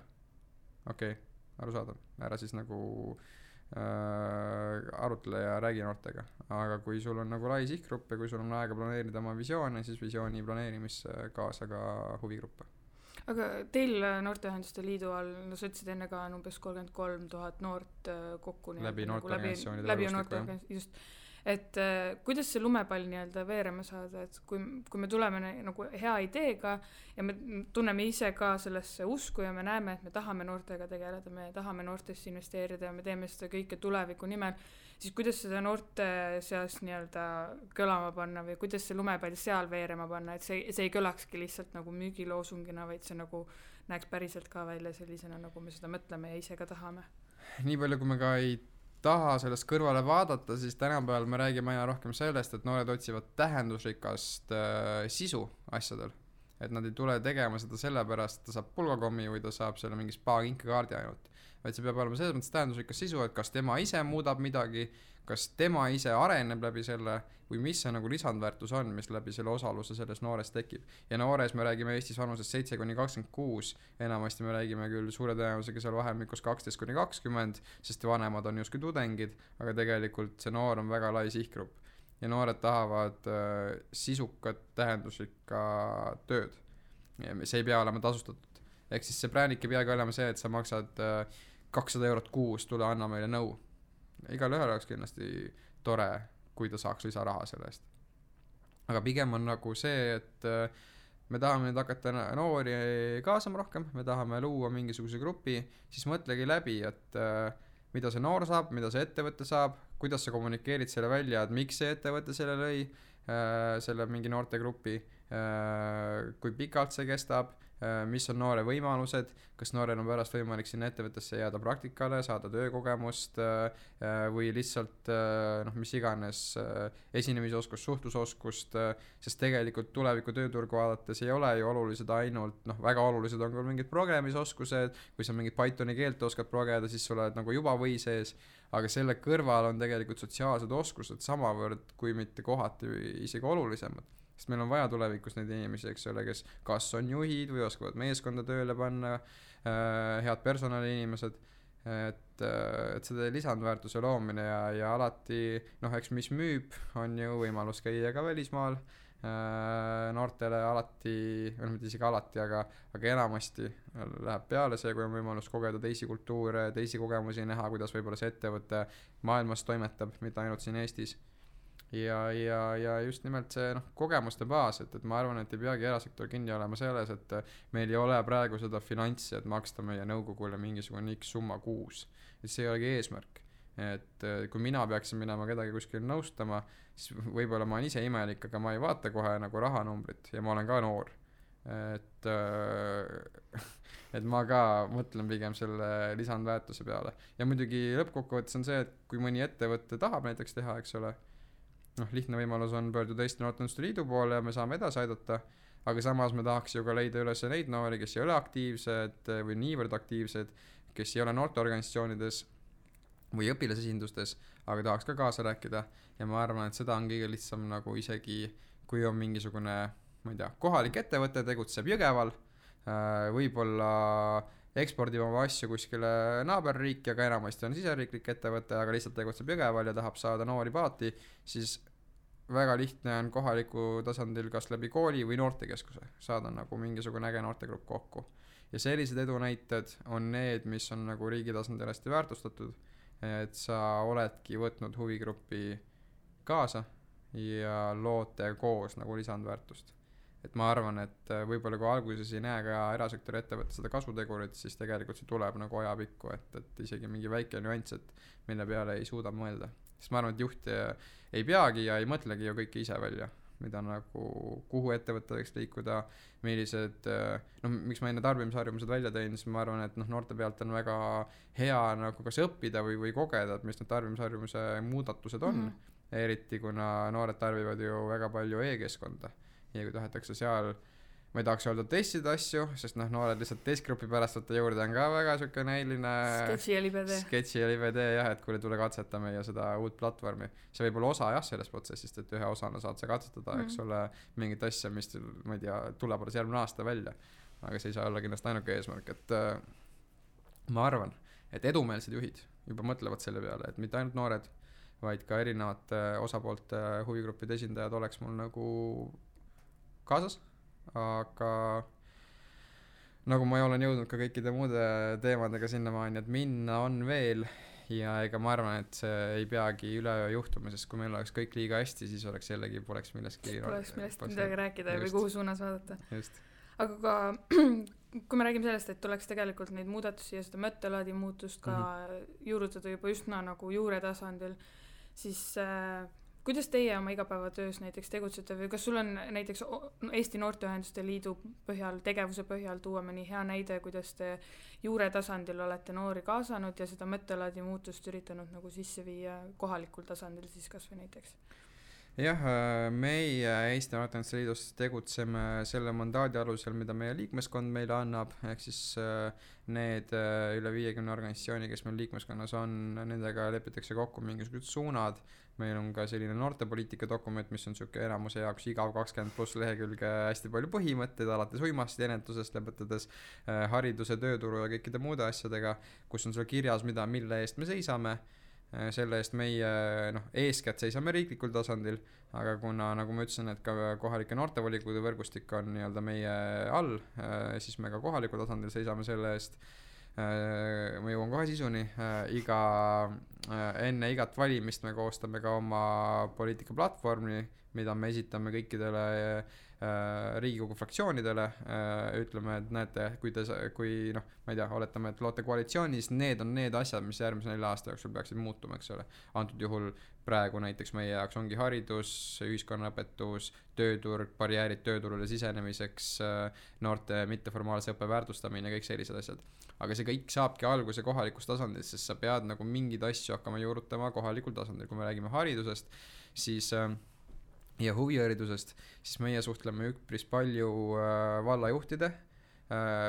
Okei, arusaadav, ära siis nagu arutle ja räägi noortega, aga kui sul on nagu lai sihtgrupp ja kui sul on aega planeerida oma visioone, siis visiooni planeerimisse kaasa ka huvigruppe. Aga teil Noorteühenduste Liidu all, no sa ütlesid enne ka umbes 33 000 noort kokku läbi noorteorganisatsioonide võrgustiku, just, et kuidas see lumepall nii-öelda veerema saada, et kui me tuleme nagu hea ideega ja me tunneme ise ka sellesse usku ja me näeme, et me tahame noortega tegeleda, me tahame noortesse investeerida ja me teeme seda kõike tuleviku nimel, siis kuidas seda noorte seas nii-öelda kõlama panna või kuidas see lumepall seal veerema panna, et see ei kõlakski lihtsalt nagu müügiloosungina, vaid see nagu näeks päriselt ka välja sellisena, nagu me seda mõtleme ja ise ka tahame. Nii palju, kui me ka ei taha sellest kõrvale vaadata, siis tänapäeval me räägime aina rohkem sellest, et noored otsivad tähendusrikast sisu asjadel. Et nad ei tule tegema seda sellepärast, et ta saab pulgakommi või ta saab selle mingi spa-kinkekaardi ainult. Vaid see peab olema selles mõttes tähendusrikas sisu, et kas tema ise muudab midagi, kas tema ise areneb läbi selle või mis see nagu lisandväärtus on, mis läbi selle osaluse selles noores tekib. Ja noores me räägime Eestis vanuses 7-26, enamasti me räägime küll suure tõenäosusega seal vahemikus 12-20, sest vanemad on justkui tudengid, aga tegelikult see noor on väga lai sihtgrupp. Ja noored tahavad sisukat tähendusrikka tööd. See ei pea olema tasustatud. Ehk siis see brändik ei peagi olema see, et sa maksad 200 eurot kuus, tule anna meile nõu. Igal ühel oleks kindlasti tore, kui ta saaks lisaraha selle eest. Aga pigem on nagu see, et me tahame nüüd hakata noori kaasama rohkem, me tahame luua mingisuguse grupi, siis mõtlegi läbi, et mida see noor saab, mida see ettevõte saab, kuidas sa kommunikeerid selle välja, et miks see ettevõte selle lõi, selle mingi noorte grupi, kui pikalt see kestab, mis on noore võimalused, kas noorel on pärast võimalik sinna ettevõttesse jääda praktikale, saada töökogemust või lihtsalt mis iganes esinemisoskust, suhtlusoskust, sest tegelikult tuleviku tööturgu vaadates ei ole ju olulised ainult, väga olulised on küll mingid programmisoskused, kui sa mingit Pythoni keelt oskad progeda, siis sa oled nagu juba või sees, aga selle kõrval on tegelikult sotsiaalsed oskused samavõrd, kui mitte kohati isegi olulisemad. Sest meil on vaja tulevikus neid inimesi, eks ole, kes kas on juhid või oskavad meeskonda tööle panna, head personaliinimesed, et seda lisandväärtuse loomine ja alati, eks mis müüb, on ju võimalus käia ka välismaal, noortele alati, mitte isegi alati, aga enamasti läheb peale see, kui on võimalus kogeda teisi kultuure, teisi kogemusi näha, kuidas võib-olla see ettevõte maailmas toimetab, mitte ainult siin Eestis. Ja just nimelt see kogemuste baas, et ma arvan, et ei peagi erasektor kinni olema selles, et meil ei ole praegu seda finantsi, et maksta meie nõukogule mingisugune X summa kuus. Et see ei olegi eesmärk. Et kui mina peaksin minema kedagi kuskil nõustama, siis võib-olla ma olen ise imelik, aga ma ei vaata kohe nagu rahanumbrit ja ma olen ka noor. Et ma ka mõtlen pigem selle lisandväärtuse peale. Ja muidugi lõppkokkuvõttes on see, et kui mõni ettevõtte tahab näiteks teha, eks ole, lihtne võimalus on pöörduda Eesti Noorteühenduste Liidu poole ja me saame edasi aidata, aga samas me tahaks ju ka leida üles neid noori, kes ei ole aktiivsed või niivõrd aktiivsed, kes ei ole noorteorganisatsioonides või õpilasesindustes, aga tahaks ka kaasa rääkida ja ma arvan, et seda on kõige lihtsam nagu isegi, kui on mingisugune, ma ei tea, kohalik ettevõte tegutseb Jõgeval, võib-olla ekspordib oma asju kuskile naaberriiki, aga enamasti on siseriiklik ettevõte, aga lihtsalt tegutseb Jõgeval ja tahab saada noori paati, siis väga lihtne on kohaliku tasandil kas läbi kooli või noortekeskuse saada nagu mingisugune äge noortegrupp kokku. Ja sellised edunäited on need, mis on nagu riigi tasandil hästi väärtustatud, et sa oledki võtnud huvigruppi kaasa ja loote koos nagu lisandväärtust. Et ma arvan, et võib-olla kui alguses ei näe ka erasektori ettevõtte seda kasutegurit, siis tegelikult see tuleb nagu ajapikku, et isegi mingi väike nüanss, et mille peale ei suuda mõelda. Sest ma arvan, et juht ei peagi ja ei mõtlegi ju kõike ise välja, mida nagu, kuhu ettevõtte võiks liikuda, millised, miks ma enne tarbimisharjumused välja tõin, siis ma arvan, et noorte pealt on väga hea nagu kas õppida või kogeda, et mis need tarbimisharjumuse muudatused on. eriti kuna noored tarbivad ju väga palju e-keskkonda ja kui tahetakse seal, ma ei tahaks öelda testida asju, sest noored lihtsalt testgrupi pärast võtta juurde on ka väga siuke näiline sketši ja libe tee jah, et kuule tule katseta meie seda uut platvormi. See võib olla osa jah sellest protsessist, et ühe osana saad sa katsetada, eks ole, mingit asja, mis ma ei tea, tuleb alles järgmine aasta välja, aga see ei saa olla kindlasti ainuke eesmärk, et ma arvan, et edumeelsed juhid juba mõtlevad selle peale, et mitte ainult noored, vaid ka erinevate osapoolte huvigruppide esindajad oleks mul nagu kaasas, aga nagu ma olen jõudnud ka kõikide muude teemadega sinnamaani, et minna on veel ja ega ma arvan, et see ei peagi üleöö juhtuma, sest kui meil oleks kõik liiga hästi, siis oleks jällegi poleks millestki midagi rääkida või kuhu suunas vaadata. Just. Aga ka kui me räägime sellest, et tuleks tegelikult neid muudatusi ja seda mõttelaadi muutust ka juurutada juba üsna nagu juure tasandil, siis kuidas teie oma igapäevatöös näiteks tegutsete või kas sul on näiteks Eesti Noorteühenduste Liidu põhjal, tegevuse põhjal tuua mõni hea näide, kuidas te juure tasandil olete noori kaasanud ja seda mõttelaadi muutust üritanud nagu sisse viia kohalikul tasandil siis kas või näiteks? Jah, meie Eesti Noorteühenduste Liidus tegutseme selle mandaadi alusel, mida meie liikmeskond meile annab, ehk siis need üle 50 organisatsiooni, kes meil liikmeskonnas on, nendega lepitakse kokku mingisugused suunad. Meil on ka selline noortepoliitika dokument, mis on siuke enamuse jaoks igav 20+ lehekülge hästi palju põhimõtteid, alates uimasti ennetusest, lõpetades hariduse, tööturu ja kõikide muude asjadega, kus on seal kirjas, mille eest me seisame. Selle eest meie eeskätt seisame riiklikul tasandil, aga kuna nagu ma ütlesin, et ka kohalike noortevolikogude võrgustik on nii-öelda meie all, siis me ka kohalikul tasandil seisame selle eest. Ma jõuan kohe sisuni, enne igat valimist me koostame ka oma poliitikaplatvormi, mida me esitame kõikidele Riigikogu fraktsioonidele, ütleme, et näete, kui ma ei tea, oletame, et loote koalitsioonis, need on need asjad, mis järgmise 4 aasta jooksul peaksid muutuma, eks ole. Antud juhul praegu näiteks meie jaoks ongi haridus, ühiskonnaõpetus, tööturg, barjäärid tööturule sisenemiseks, noorte mitteformaalse õppe väärtustamine ja kõik sellised asjad. Aga see kõik saabki alguse kohalikust tasandil, sest sa pead nagu mingeid asju hakkama juurutama kohalikul tasandil. Kui me räägime haridusest, siis ja huviharidusest, siis meie suhtleme üpris palju vallajuhtide,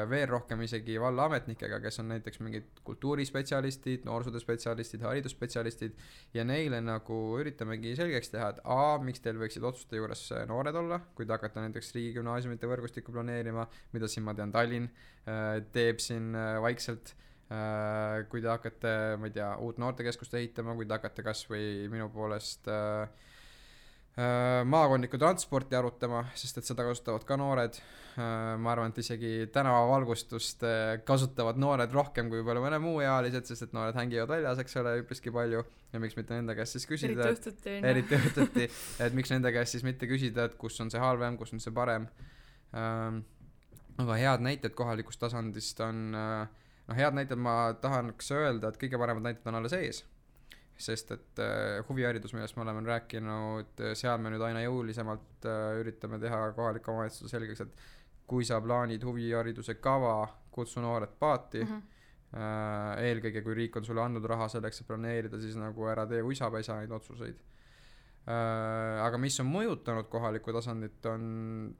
veel rohkem isegi vallaametnikega, kes on näiteks mingid kultuurispetsialistid, noorsootööspetsialistid, haridusspetsialistid ja neile nagu üritamegi selgeks teha, et miks teil võiksid otsuste juures noored olla, kui te hakkate näiteks riigigümnaasiumite võrgustikku planeerima, mida siin ma tean Tallinn teeb siin vaikselt, kui te hakkate, ma ei tea, uut noortekeskust ehitama, kui te hakkate kas või minu poolest maakondlikku transporti arutama, sest et seda kasutavad ka noored. Ma arvan, et isegi tänavavalgustust kasutavad noored rohkem kui palju mõne muu ealised, sest et noored hängivad väljas, eks ole, üpriski palju ja miks mitte nende käest siis küsida, eriti õhtuti, et miks nende käest siis mitte küsida, et kus on see halvem, kus on see parem. Aga head näited kohalikust tasandist on, head näited ma tahaks öelda, et kõige paremad näited on alles ees. Sest et huviharidus, millest me oleme rääkinud, seal me nüüd aina jõulisemalt üritame teha kohalike omavalitsuse selgeks, et kui sa plaanid huvihariduse kava, kutsu noored paati, eelkõige kui riik on sulle andnud raha selleks, et planeerida, siis nagu ära tee uisapesa neid otsuseid. Aga mis on mõjutanud kohalikku tasandit, on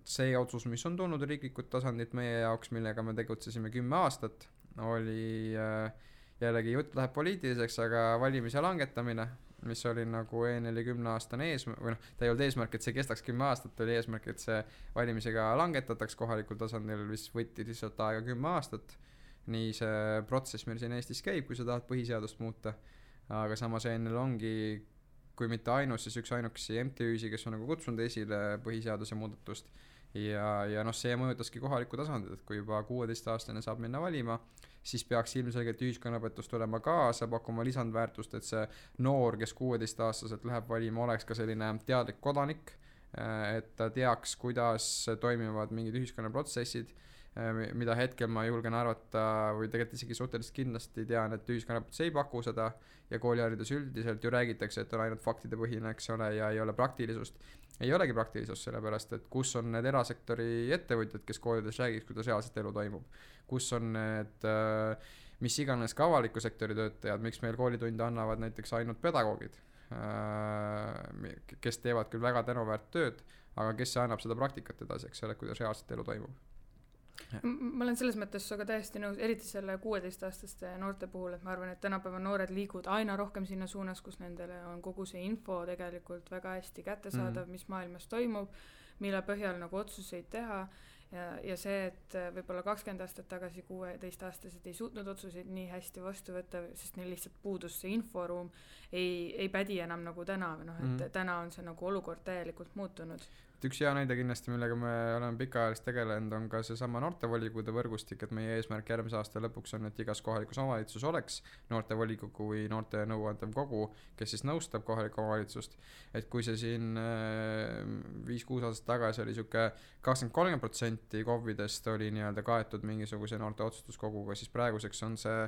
see otsus, mis on tulnud riiklikult tasandit meie jaoks, millega me tegutsesime 10 aastat, oli jällegi jutt läheb poliitiliseks, aga valimise langetamine, mis oli nagu enne 10-aastane eesmärk, või ta ei olnud eesmärk, et see kestaks 10 aastat, oli eesmärk, et see valimisega langetataks kohalikul tasandil, mis võtti lihtsalt aega 10 aastat. Nii see protsess meil siin Eestis käib, kui sa tahad põhiseadust muuta, aga samas ennel ongi, kui mitte ainus, siis üks ainukesi MTÜ-si, kes on nagu kutsunud esile põhiseaduse muudatust ja see mõjutaski kohalikku tasandit, et kui juba 16-aastane saab minna valima, siis peaks ilmselgelt ühiskonnaõpetust olema kaasa, pakkuma lisandväärtust, et see noor, kes 16-aastaselt läheb valima, oleks ka selline teadlik kodanik, et ta teaks, kuidas toimivad mingid ühiskonnaprotsessid, mida hetkel ma julgen arvata või tegelikult isegi suhteliselt kindlasti tean, et ühiskonnaõpetus ei paku seda ja kooliharidus üldiselt ju räägitakse, et on ainult faktide põhine, eks ole, ja ei ole praktilisust. Ei olegi praktilisust, sellepärast, et kus on need erasektori ettevõtjad, kes koolides räägiks, kuidas reaalselt elu toimub. Kus on need, mis iganes ka avaliku sektori töötajad, miks meil koolitunde annavad näiteks ainult pedagoogid. kes teevad küll väga tänuväärt tööd, aga kes annab seda praktikat edasi, eks ole, kuidas reaalselt elu toimub. Ma olen selles mõttes aga täiesti nõus, eriti selle 16-aastaste noorte puhul, et ma arvan, et tänapäeva noored liiguvad aina rohkem sinna suunas, kus nendele on kogu see info tegelikult väga hästi kättesaadav, mis maailmas toimub, mille põhjal nagu otsuseid teha ja see, et võib-olla 20 aastat tagasi 16-aastased ei suutnud otsuseid nii hästi vastu võtta, sest neil lihtsalt puudus see inforuum, ei pädi enam nagu täna, et täna on see nagu olukord täielikult muutunud. Üks hea näide kindlasti, millega me oleme pikaajalist tegelenud, on ka see sama noortevolikogude võrgustik, et meie eesmärk järgmise aasta lõpuks on, et igas kohalikus omavalitsus oleks noortevolikogu või noorte nõuandev kogu, kes siis nõustab kohalikku omavalitsust. Et kui see siin 5-6 aastat tagasi oli siuke 20-30% KOV-idest oli nii-öelda kaetud mingisuguse noorte otsustuskoguga, siis praeguseks on see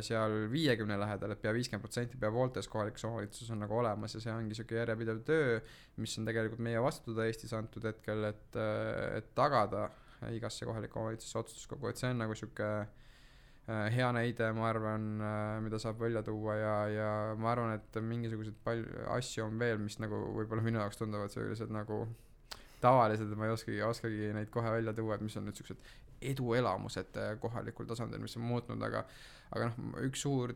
seal 50 lähedal, et pea 50% pea pooltes kohalikus omavalitsus on nagu olemas ja see ongi siuke järjepidev töö, mis on tegelikult meie vastutada Eestis antud hetkel, et tagada igasse kohaliku omavalitsuse otsustuskogu, et see on nagu siuke hea näide, ma arvan, mida saab välja tuua ja ma arvan, et mingisuguseid palju asju on veel, mis nagu võib-olla minu jaoks tunduvad sellised nagu tavalised, ma ei oskagi neid kohe välja tuua, et mis on nüüd siuksed eduelamused kohalikul tasandil, mis on muutnud, aga üks suur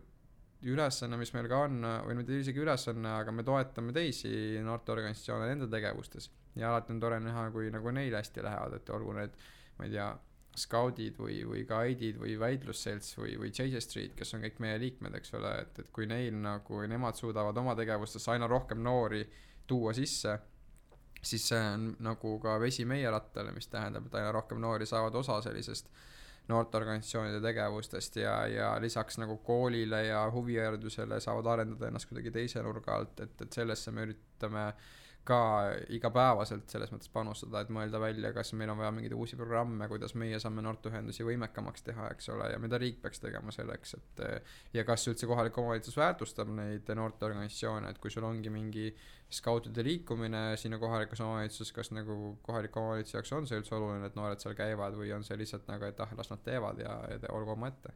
ülesanne, mis meil ka on, või mitte isegi ülesanne, aga me toetame teisi noorteorganisatsioone nende tegevustes ja alati on tore näha, kui nagu neil hästi lähevad, et olgu need, ma ei tea, skaudid või guide'id või väitlusselts või JJ Street, kes on kõik meie liikmed, eks ole, et kui neil nagu, nemad suudavad oma tegevustesse aina rohkem noori tuua sisse, siis see on nagu ka vesi meie rattale, mis tähendab, et aina rohkem noori saavad osa sellisest noorteorganisatsioonide tegevustest ja lisaks nagu koolile ja huviharidusele saavad arendada ennast kuidagi teise nurga alt, et sellesse me üritame ka igapäevaselt selles mõttes panustada, et mõelda välja, kas meil on vaja mingeid uusi programme, kuidas meie saame noorteühendusi võimekamaks teha, eks ole, ja mida riik peaks tegema selleks, et ja kas üldse kohalik omavalitsus väärtustab neid noorteorganisatsioone, et kui sul ongi mingi skautide liikumine sinna kohalikus omavalitsuses, kas nagu kohalik omavalitsus jaoks on see üldse oluline, et noored seal käivad või on see lihtsalt nagu, et las nad teevad ja olgu oma ette.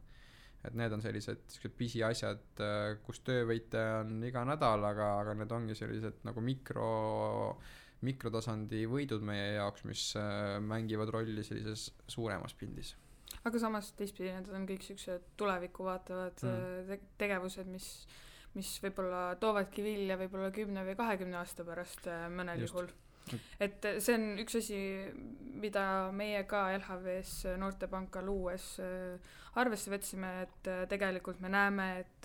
Et need on sellised pisiasjad, kus töövõite on iga nädal, aga need ongi sellised nagu mikrotasandi võidud meie jaoks, mis mängivad rolli sellises suuremas pildis. Aga samas teistpidi need on kõik sellised tulevikku vaatavad tegevused, mis võib-olla toovadki vilja võib-olla 10 või 20 aasta pärast mõnel juhul. Et see on üks asi, mida meie ka LHV-s Noortepanka luues arvesse võtsime, et tegelikult me näeme, et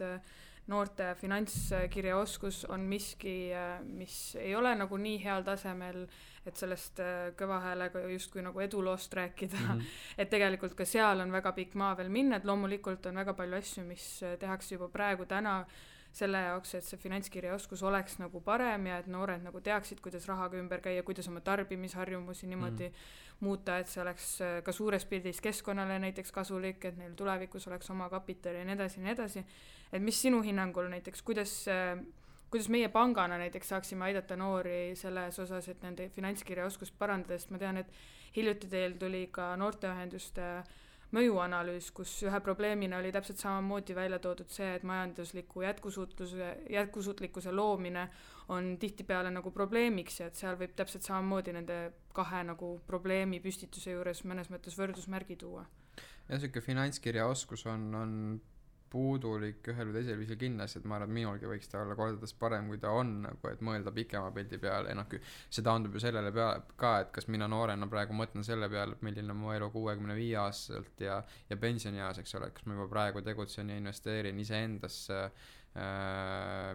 noorte finantskirjaoskus on miski, mis ei ole nagu nii heal tasemel, et sellest kõva häälega justkui nagu eduloost rääkida. Et tegelikult ka seal on väga pikk maa veel minna, et loomulikult on väga palju asju, mis tehakse juba praegu täna selle jaoks, et see finantskirjaoskus oleks nagu parem ja et noored nagu teaksid, kuidas rahaga ümber käia, kuidas oma tarbimisharjumusi niimoodi muuta, et see oleks ka suures pildis keskkonnale näiteks kasulik, et neil tulevikus oleks oma kapital ja nii edasi. Et mis sinu hinnangul näiteks, kuidas meie pangana näiteks saaksime aidata noori selles osas, et nende finantskirjaoskust parandada, sest ma tean, et hiljuti teil tuli ka noorteühenduste mõjuanalüüs, kus ühe probleemina oli täpselt samamoodi välja toodud see, et majandusliku jätkusuutlikkuse loomine on tihtipeale nagu probleemiks ja et seal võib täpselt samamoodi nende kahe nagu probleemi püstituse juures mõnes mõttes võrdusmärgi tuua. Ja selline finantskirjaoskus on puudulik ühel või teisel viisil kindlasti, et ma arvan, et minulgi võiks ta olla kordades parem, kui ta on, nagu, et mõelda pikema pildi peale, see taandub ju sellele peale ka, et kas mina noorena praegu mõtlen selle peale, milline on mu elu 65 aastaselt ja pensionieas, eks ole, kas ma juba praegu tegutsen ja investeerin iseendasse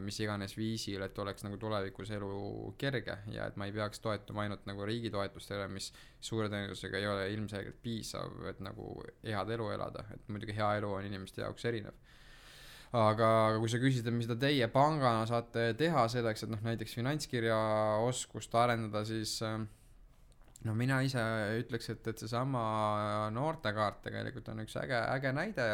mis iganes viisil, et oleks nagu tulevikus elu kerge ja et ma ei peaks toetuma ainult nagu riigi toetustele, mis suure tõenäosusega ei ole ilmselgelt piisav, et nagu head elu elada, et muidugi hea elu on inimeste jaoks erinev. Aga kui sa küsid, mida teie pangana saate teha selleks, et näiteks finantskirjaoskust arendada, siis mina ise ütleks, et see sama noortekaart tegelikult on üks äge näide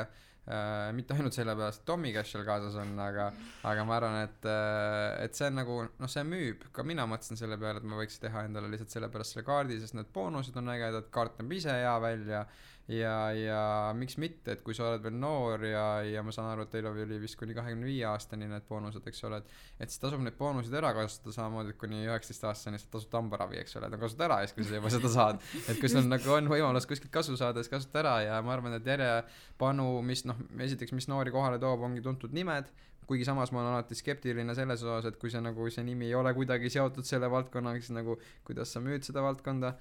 mitte ainult sellepärast, et Tommy Cash seal kaasas on, aga ma arvan, et see on nagu, noh, see müüb, ka mina mõtlesin selle peale, et ma võiks teha endale lihtsalt sellepärast selle kaardi, sest need boonused on ägedad, kaart näeb ise hea välja ja miks mitte, et kui sa oled veel noor ja ma saan aru, et teil oli vist kuni 25 aastani need boonused, eks ole, et siis tasub neid boonuseid ära kasutada samamoodi, et kuni 19 aastani sa tasud hambaravi, eks ole, et kasuta ära, kui sa juba seda saad, et kui sul nagu on võimalus kuskilt kasu saada, siis kasuta ära ja ma arvan, et järjepanu, mis noh, esiteks, mis noori kohale toob, ongi tuntud nimed, kuigi samas ma olen alati skeptiline selles osas, et kui see nagu see nimi ei ole kuidagi seotud selle valdkonnaga, siis nagu kuidas sa müüd seda valdkonda.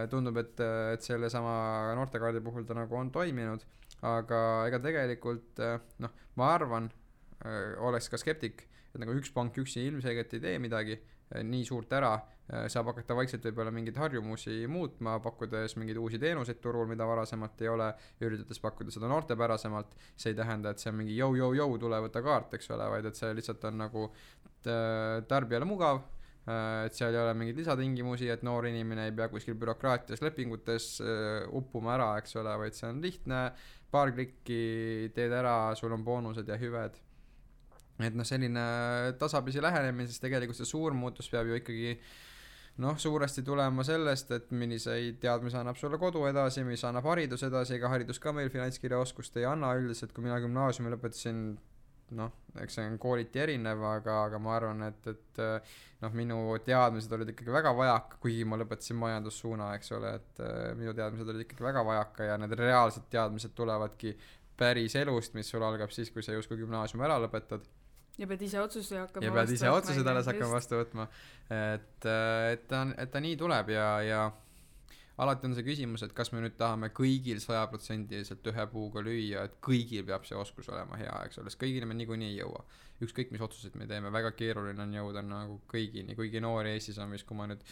Tundub, et selle sama noortekaardi puhul ta nagu on toiminud, aga ega tegelikult noh, ma arvan, oleks ka skeptik, et nagu üks pank üksi ilmselgelt ei tee midagi nii suurt ära, saab hakata vaikselt võib-olla mingeid harjumusi muutma, pakkudes mingeid uusi teenuseid turul, mida varasemalt ei ole, üritades pakkuda seda noortepärasemalt. See ei tähenda, et see on mingi jõu, tule võtta kaart, eks ole, vaid et see lihtsalt on nagu tarbijale mugav, et seal ei ole mingeid lisatingimusi, et noor inimene ei pea kuskil bürokraatias lepingutes uppuma ära, eks ole, vaid see on lihtne, paar klikki teed ära, sul on boonused ja hüved. Et noh, selline tasapisi lähenemine, siis tegelikult see suur muutus peab ju ikkagi noh, suuresti tulema sellest, et milliseid teadmisi annab sulle kodu edasi, mis annab haridus edasi, ega haridus ka meil finantskirjaoskust ei anna üldiselt, kui mina gümnaasiumi lõpetasin, noh, eks see on kooliti erinev, aga ma arvan, et noh, minu teadmised olid ikkagi väga vajaka, kuigi ma lõpetasin majandussuuna, eks ole, et minu teadmised olid ikkagi väga vajaka ja need reaalsed teadmised tulevadki päris elust, mis sul algab siis, kui sa justkui gümnaasiumi ära lõpetad. Ja pead ise otsuseid alles hakkama vastu võtma. Et ta nii tuleb ja alati on see küsimus, et kas me nüüd tahame kõigil 100% ühe puuga lüüa, et kõigil peab see oskus olema hea, eks ole, sest kõigile me niikuinii ei jõua. Ükskõik mis otsuseid me teeme, väga keeruline on jõuda nagu kõigini, kuigi noori Eestis on vist, kui ma nüüd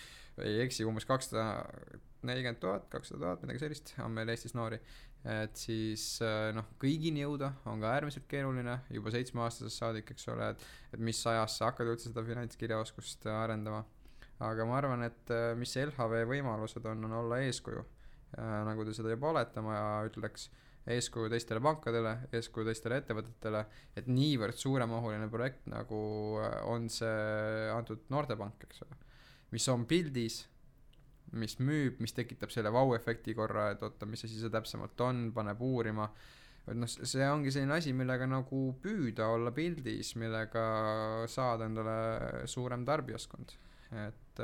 ei eksi, umbes 240 000, 200 000, midagi sellist on meil Eestis noori. Et siis noh, kõigini jõuda on ka äärmiselt keeruline, juba 7-aastasest saadik, eks ole, et mis ajas sa hakkad üldse seda finantskirjaoskust arendama. Aga ma arvan, et mis LHV võimalused on olla eeskuju, nagu te seda juba olete, ma ütleks eeskuju teistele pankadele, eeskuju teistele ettevõtetele, et niivõrd suuremahuline projekt nagu on see antud noortepank, eks ole, mis on pildis, mis müüb, mis tekitab selle vau-efekti korra, et oota, mis asi see täpsemalt on, paneb uurima, et noh, see ongi selline asi, millega nagu püüda olla pildis, millega saada endale suurem tarbijaskond. Et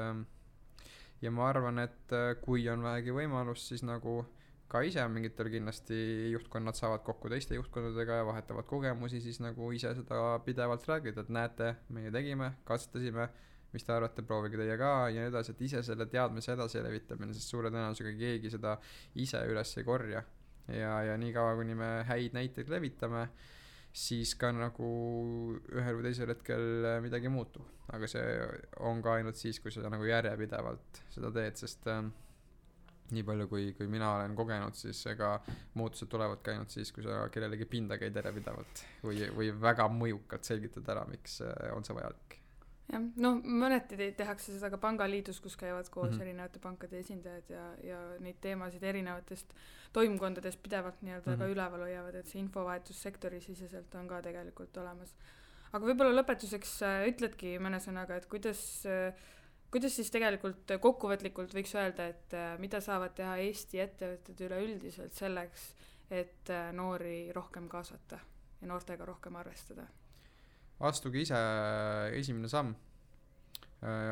ja ma arvan, et kui on vähegi võimalus, siis nagu ka ise mingitel kindlasti juhtkonnad saavad kokku teiste juhtkondadega ja vahetavad kogemusi, siis nagu ise seda pidevalt räägida, et näete, meie tegime, katsetasime, mis te arvate, proovige teie ka ja nii edasi, et ise selle teadmise edasi levitamine, sest suure tõenäosusega keegi seda ise üles ei korja ja nii kaua, kuni me häid näiteid levitame, siis ka nagu ühel või teisel hetkel midagi muutub, aga see on ka ainult siis, kui sa nagu järjepidevalt seda teed, sest nii palju kui mina olen kogenud, siis ega muutused tulevadki ainult siis, kui sa kellelegi pinda käid järjepidevalt või väga mõjukalt selgitad ära, miks on see vajalik. Jah, noh, mõneti tehakse seda ka pangaliidus, kus käivad koos erinevate pankade esindajad ja neid teemasid erinevatest toimkondadest pidevalt nii-öelda ka üleval hoiavad, et see infovahetus sektori siseselt on ka tegelikult olemas. Aga võib-olla lõpetuseks ütledki mõne sõnaga, et kuidas siis tegelikult kokkuvõtlikult võiks öelda, et mida saavad teha Eesti ettevõtted üleüldiselt selleks, et noori rohkem kaasata ja noortega rohkem arvestada? Astuge ise esimene samm,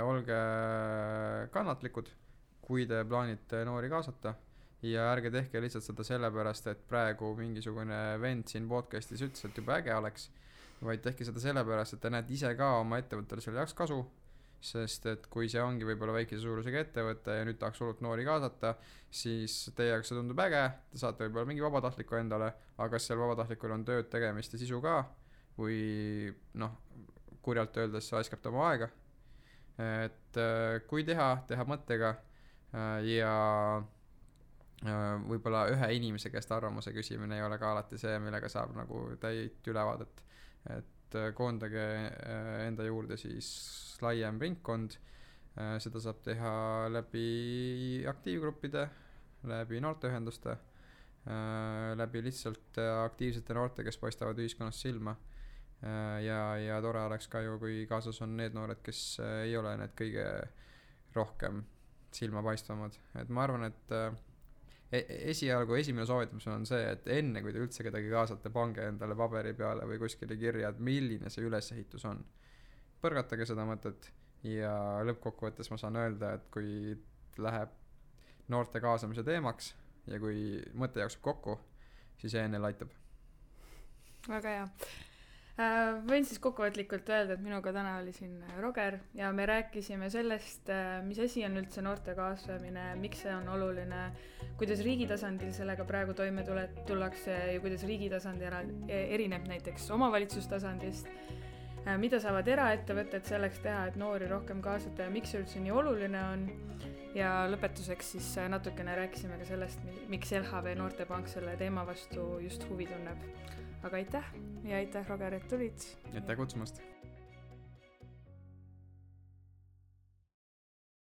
olge kannatlikud, kui te plaanite noori kaasata ja ärge tehke lihtsalt seda sellepärast, et praegu mingisugune vend siin podcastis ütles, et juba äge oleks, vaid tehke seda sellepärast, et te näete ise ka oma ettevõttele selle jaoks kasu, sest et kui see ongi võib-olla väikese suurusega ettevõte ja nüüd tahaks hullult noori kaasata, siis teie jaoks see tundub äge, te saate võib-olla mingi vabatahtliku endale, aga kas seal vabatahtlikul on tööd tegemist ja sisu ka, või noh, kurjalt öeldes aiskab ta oma aega, et kui teha mõttega ja võib-olla ühe inimese käest arvamuse küsimine ei ole ka alati see, millega saab nagu täit ülevaadet, et koondage enda juurde siis laiem ringkond, seda saab teha läbi aktiivgruppide, läbi noorteühenduste, läbi lihtsalt aktiivsete noorte, kes paistavad ühiskonnas silma. Ja tore oleks ka ju, kui kaasas on need noored, kes ei ole need kõige rohkem silmapaistvamad. Et ma arvan, et esialgu esimene soovitus on see, et enne kui te üldse kedagi kaasate, pange endale paberi peale või kuskile kirja, et milline see ülesehitus on. Põrgatage seda mõtet ja lõppkokkuvõttes ma saan öelda, et kui läheb noorte kaasamise teemaks ja kui mõte jookseb kokku, siis ENL aitab. Väga hea. Võin siis kokkuvõtlikult öelda, et minuga täna oli siin Roger ja me rääkisime sellest, mis asi on üldse noorte kaasamine, miks see on oluline, kuidas riigi tasandil sellega praegu toime tullakse ja kuidas riigi tasandil erineb näiteks omavalitsustasandist, mida saavad eraettevõtted selleks teha, et noori rohkem kaasata ja miks see üldse nii oluline on. Ja lõpetuseks siis natukene rääkisime ka sellest, miks LHV Noortepank selle teema vastu just huvi tunneb. Aga aitäh ja aitäh, Roger, et tulid. Aitäh kutsumast.